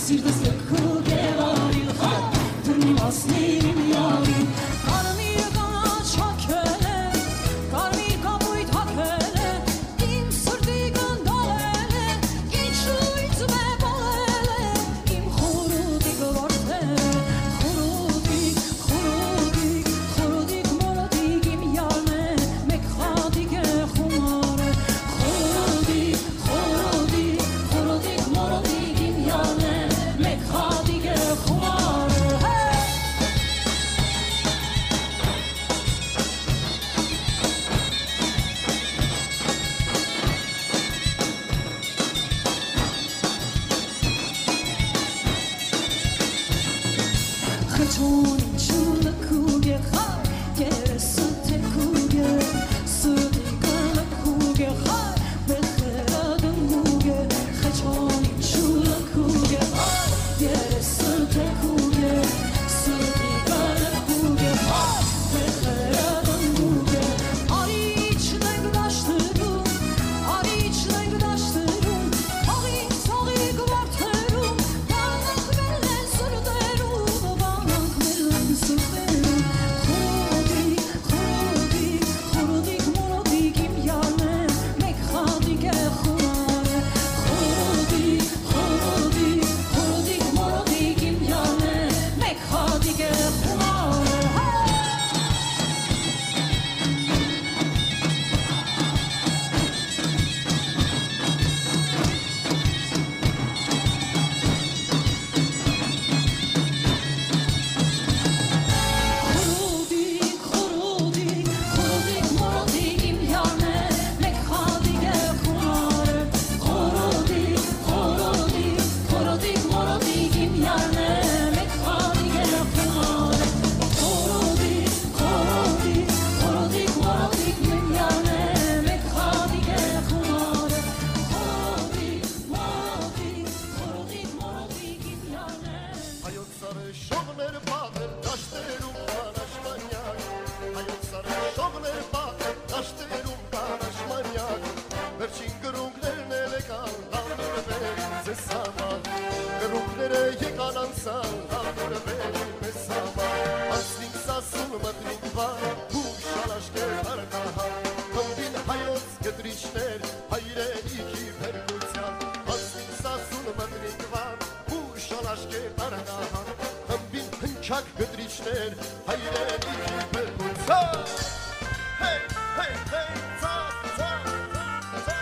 սիրտս կքու կերարին խայ, թուրմի մասնին իմ յարին։ Կարմիր կանաչ հագել է, կարմիր կապույտ հագել է, իմ սրտի կնդալել է, ինչու ինձ մե պալել է, իմ խուրուտիկ որդը, խուրուտիկ, խուրուտիկ, խուրուտիկ մորոտիկ իմ յարն է, մէկ խատիկ է խումարը, խուրուտիկ, խուրուտիկ, խուրուտիկ մորոտիկ իմ յարն է, մէկ խատիկ է խումարը, հե! Հայրենիքի փրկության։ Հեյ, հեյ, հեյ, ցա, ցա, ցա, ցա։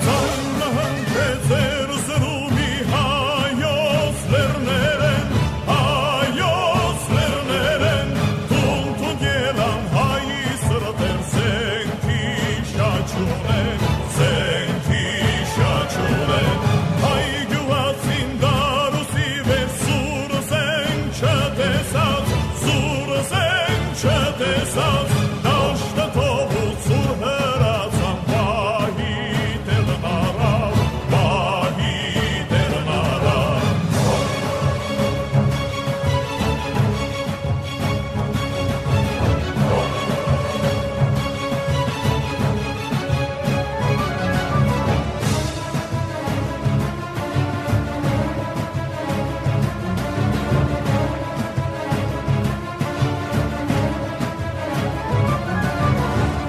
Ծանրահանջեց էր զրումի հայոց լեռներէն, հայոց լեռներէն, թունդ-թունդ ելան հայ սրտեր, զենքի շաչունեն, զենքի շաչունեն, հայ գիւղացին դարուսի վեր, սուր զենք չտեսած, սուր զենք չտեսած, դաշտը թողուց, ուր հրացան, պահի տեղն առաւ, պահի տեղն առաւ։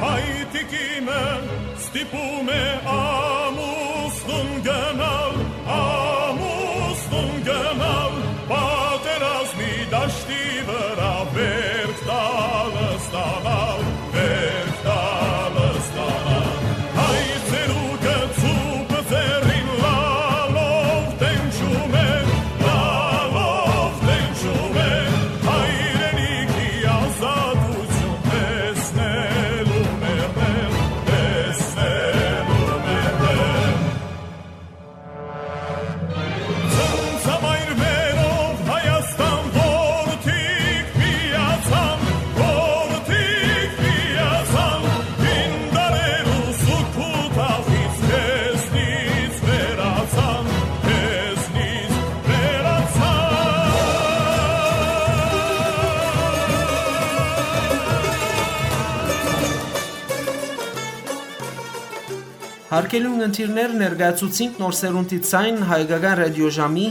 Հայ տիկինը ստիպում է ամուսնուն գնալ, ամուսնուն գնալ, պատերազմի դաշտի վրայ, վերք տալը ստանալ, վերք տալը ստանալ։ Հայ ծերուկը ծուփը ձեռին լալով տենչում է, լալով տենչում է, հայրենիքի ազատութիւն տեսնելու մեռնել, տեսնելու մեռնել։ Ծնծամայր մերով Հայաստան որդիք միացան, որդիք միացան, հին դարերու սուգ թախից քեզնից վերացան, քեզնից վերացան։ Հարգելի ունգընտիրներ, ներկայացուցինք Նոր սերունդի ձայն հայկական ռադիոժամի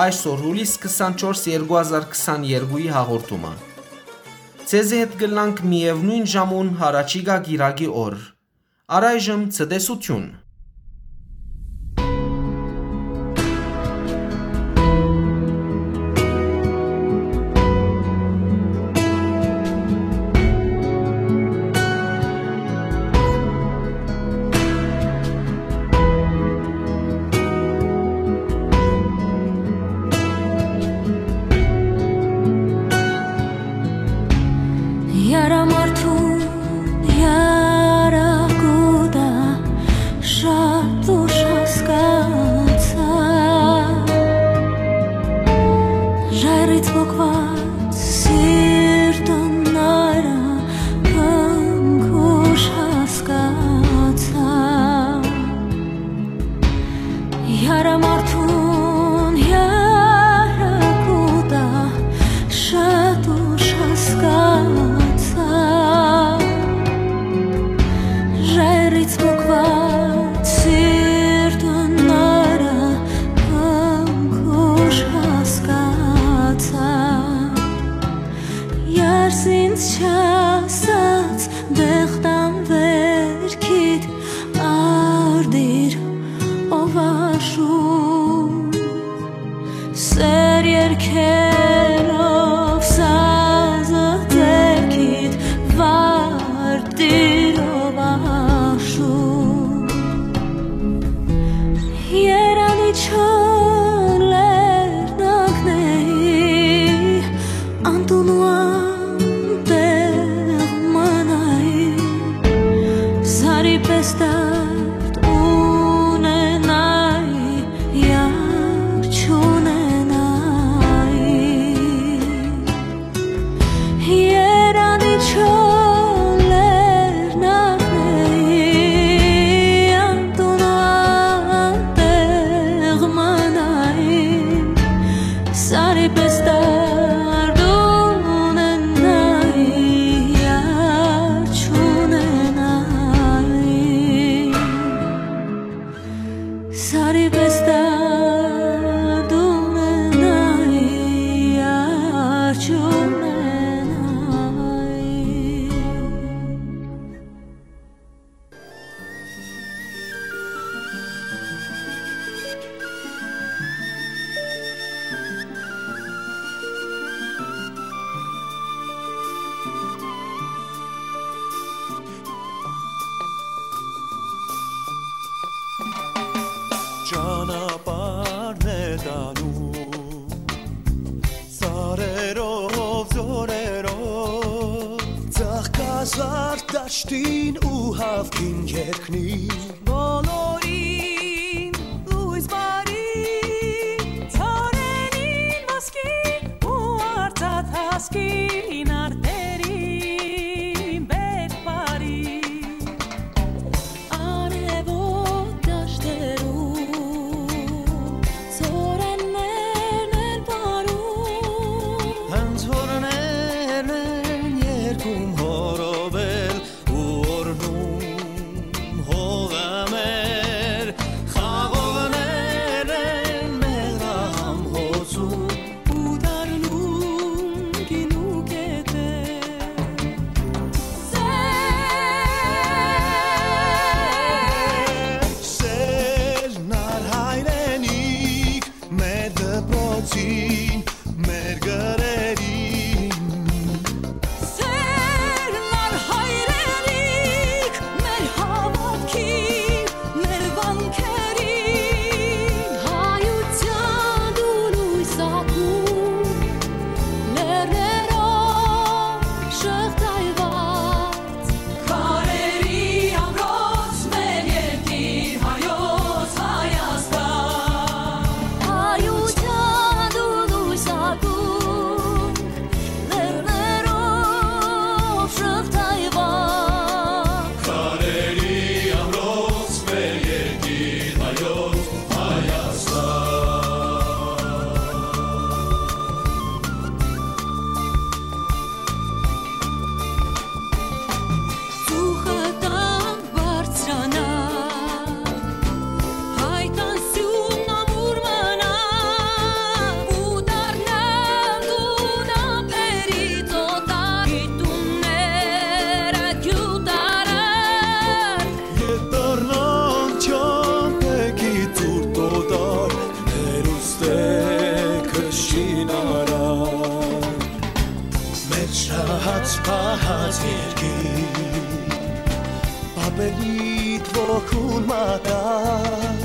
այսօր, հուլիս քսանչորս, երկու հազար քսաներկուի հաղորդումը։ Ձեզի հետ կլանք միեւնոյն ժամուն յառաջիկայ կիրակի օր։ Առայժմ ցտեսութիւն։ Յարամարդուն յարակուտա շատ ուշ հասկացայ, ժայռից պոկված սիրտը նայր քնքուշ հասկացայ։ Յարամարդուն յարակուտա շատ ուշ հասկացայ, ժայռից պոկված սիրտը նայր քնքուշ հասկացայ։ Յարս ինձ չասած, դեղտան վերքիդ արտիր, ով աշուն, սեր երկելով սազը ձեռքիդ, վարտիր, ով աշուն։ Երանի չոր լեռնակների անտուն ու անտեղ մնայի, սարի պէս դարդ ունենայի, յար չունենայի։ Երանի չոր լեռնակների անտուն անտեղ մնայի, սարի պէս դարդ ունենայի, յար չունենայի։ Սարի պէս դարդ ունենայի, յար չունենայի։ տանում, ծառերով, զօրերով, ծաղկազարդ դաշտին ու հաւքին երկնի։ Բոլորին լոյս բարի, ծառերին ոսկի ու արծաթ հասկին արտերին բերք բարի։ Արեւոտ դաշտերու ծորեններն են պարում, հենց օրներն են երկում հորովել ու օրհնում հողը մեր, խաղողներն են մեղրահամ հոսում ու դառնում գինու կետեր։ Սեր, սեր, նար հայրենիք, մեր դպրոցին, մեր գրերին։ Սեր, նար հայրենիք, մեր հաւատքին, մեր վանքերին։ Հայութեան դու լոյս ակում, լեռներով շղթայուած, քարերի ամրոց մեր երկիր հայոց Հայաստան։ Հայութեան դու լոյս ակում, լեռներով շղթայուած, քարերի ամրոց մեր երկիր հայոց Հայաստան։ Ծուխը տան բարձրանայ, հայկան սիւնն ամուր մնայ, ու դառնալ դուն ափերի ծոտայ, տունները գիւտարար, ետ դառնան չամբեքի ծուռ տոտար, հերուստեքը շինարար։ Մեր շահած պահած երկիր, պապերիդ ոգուն մատար,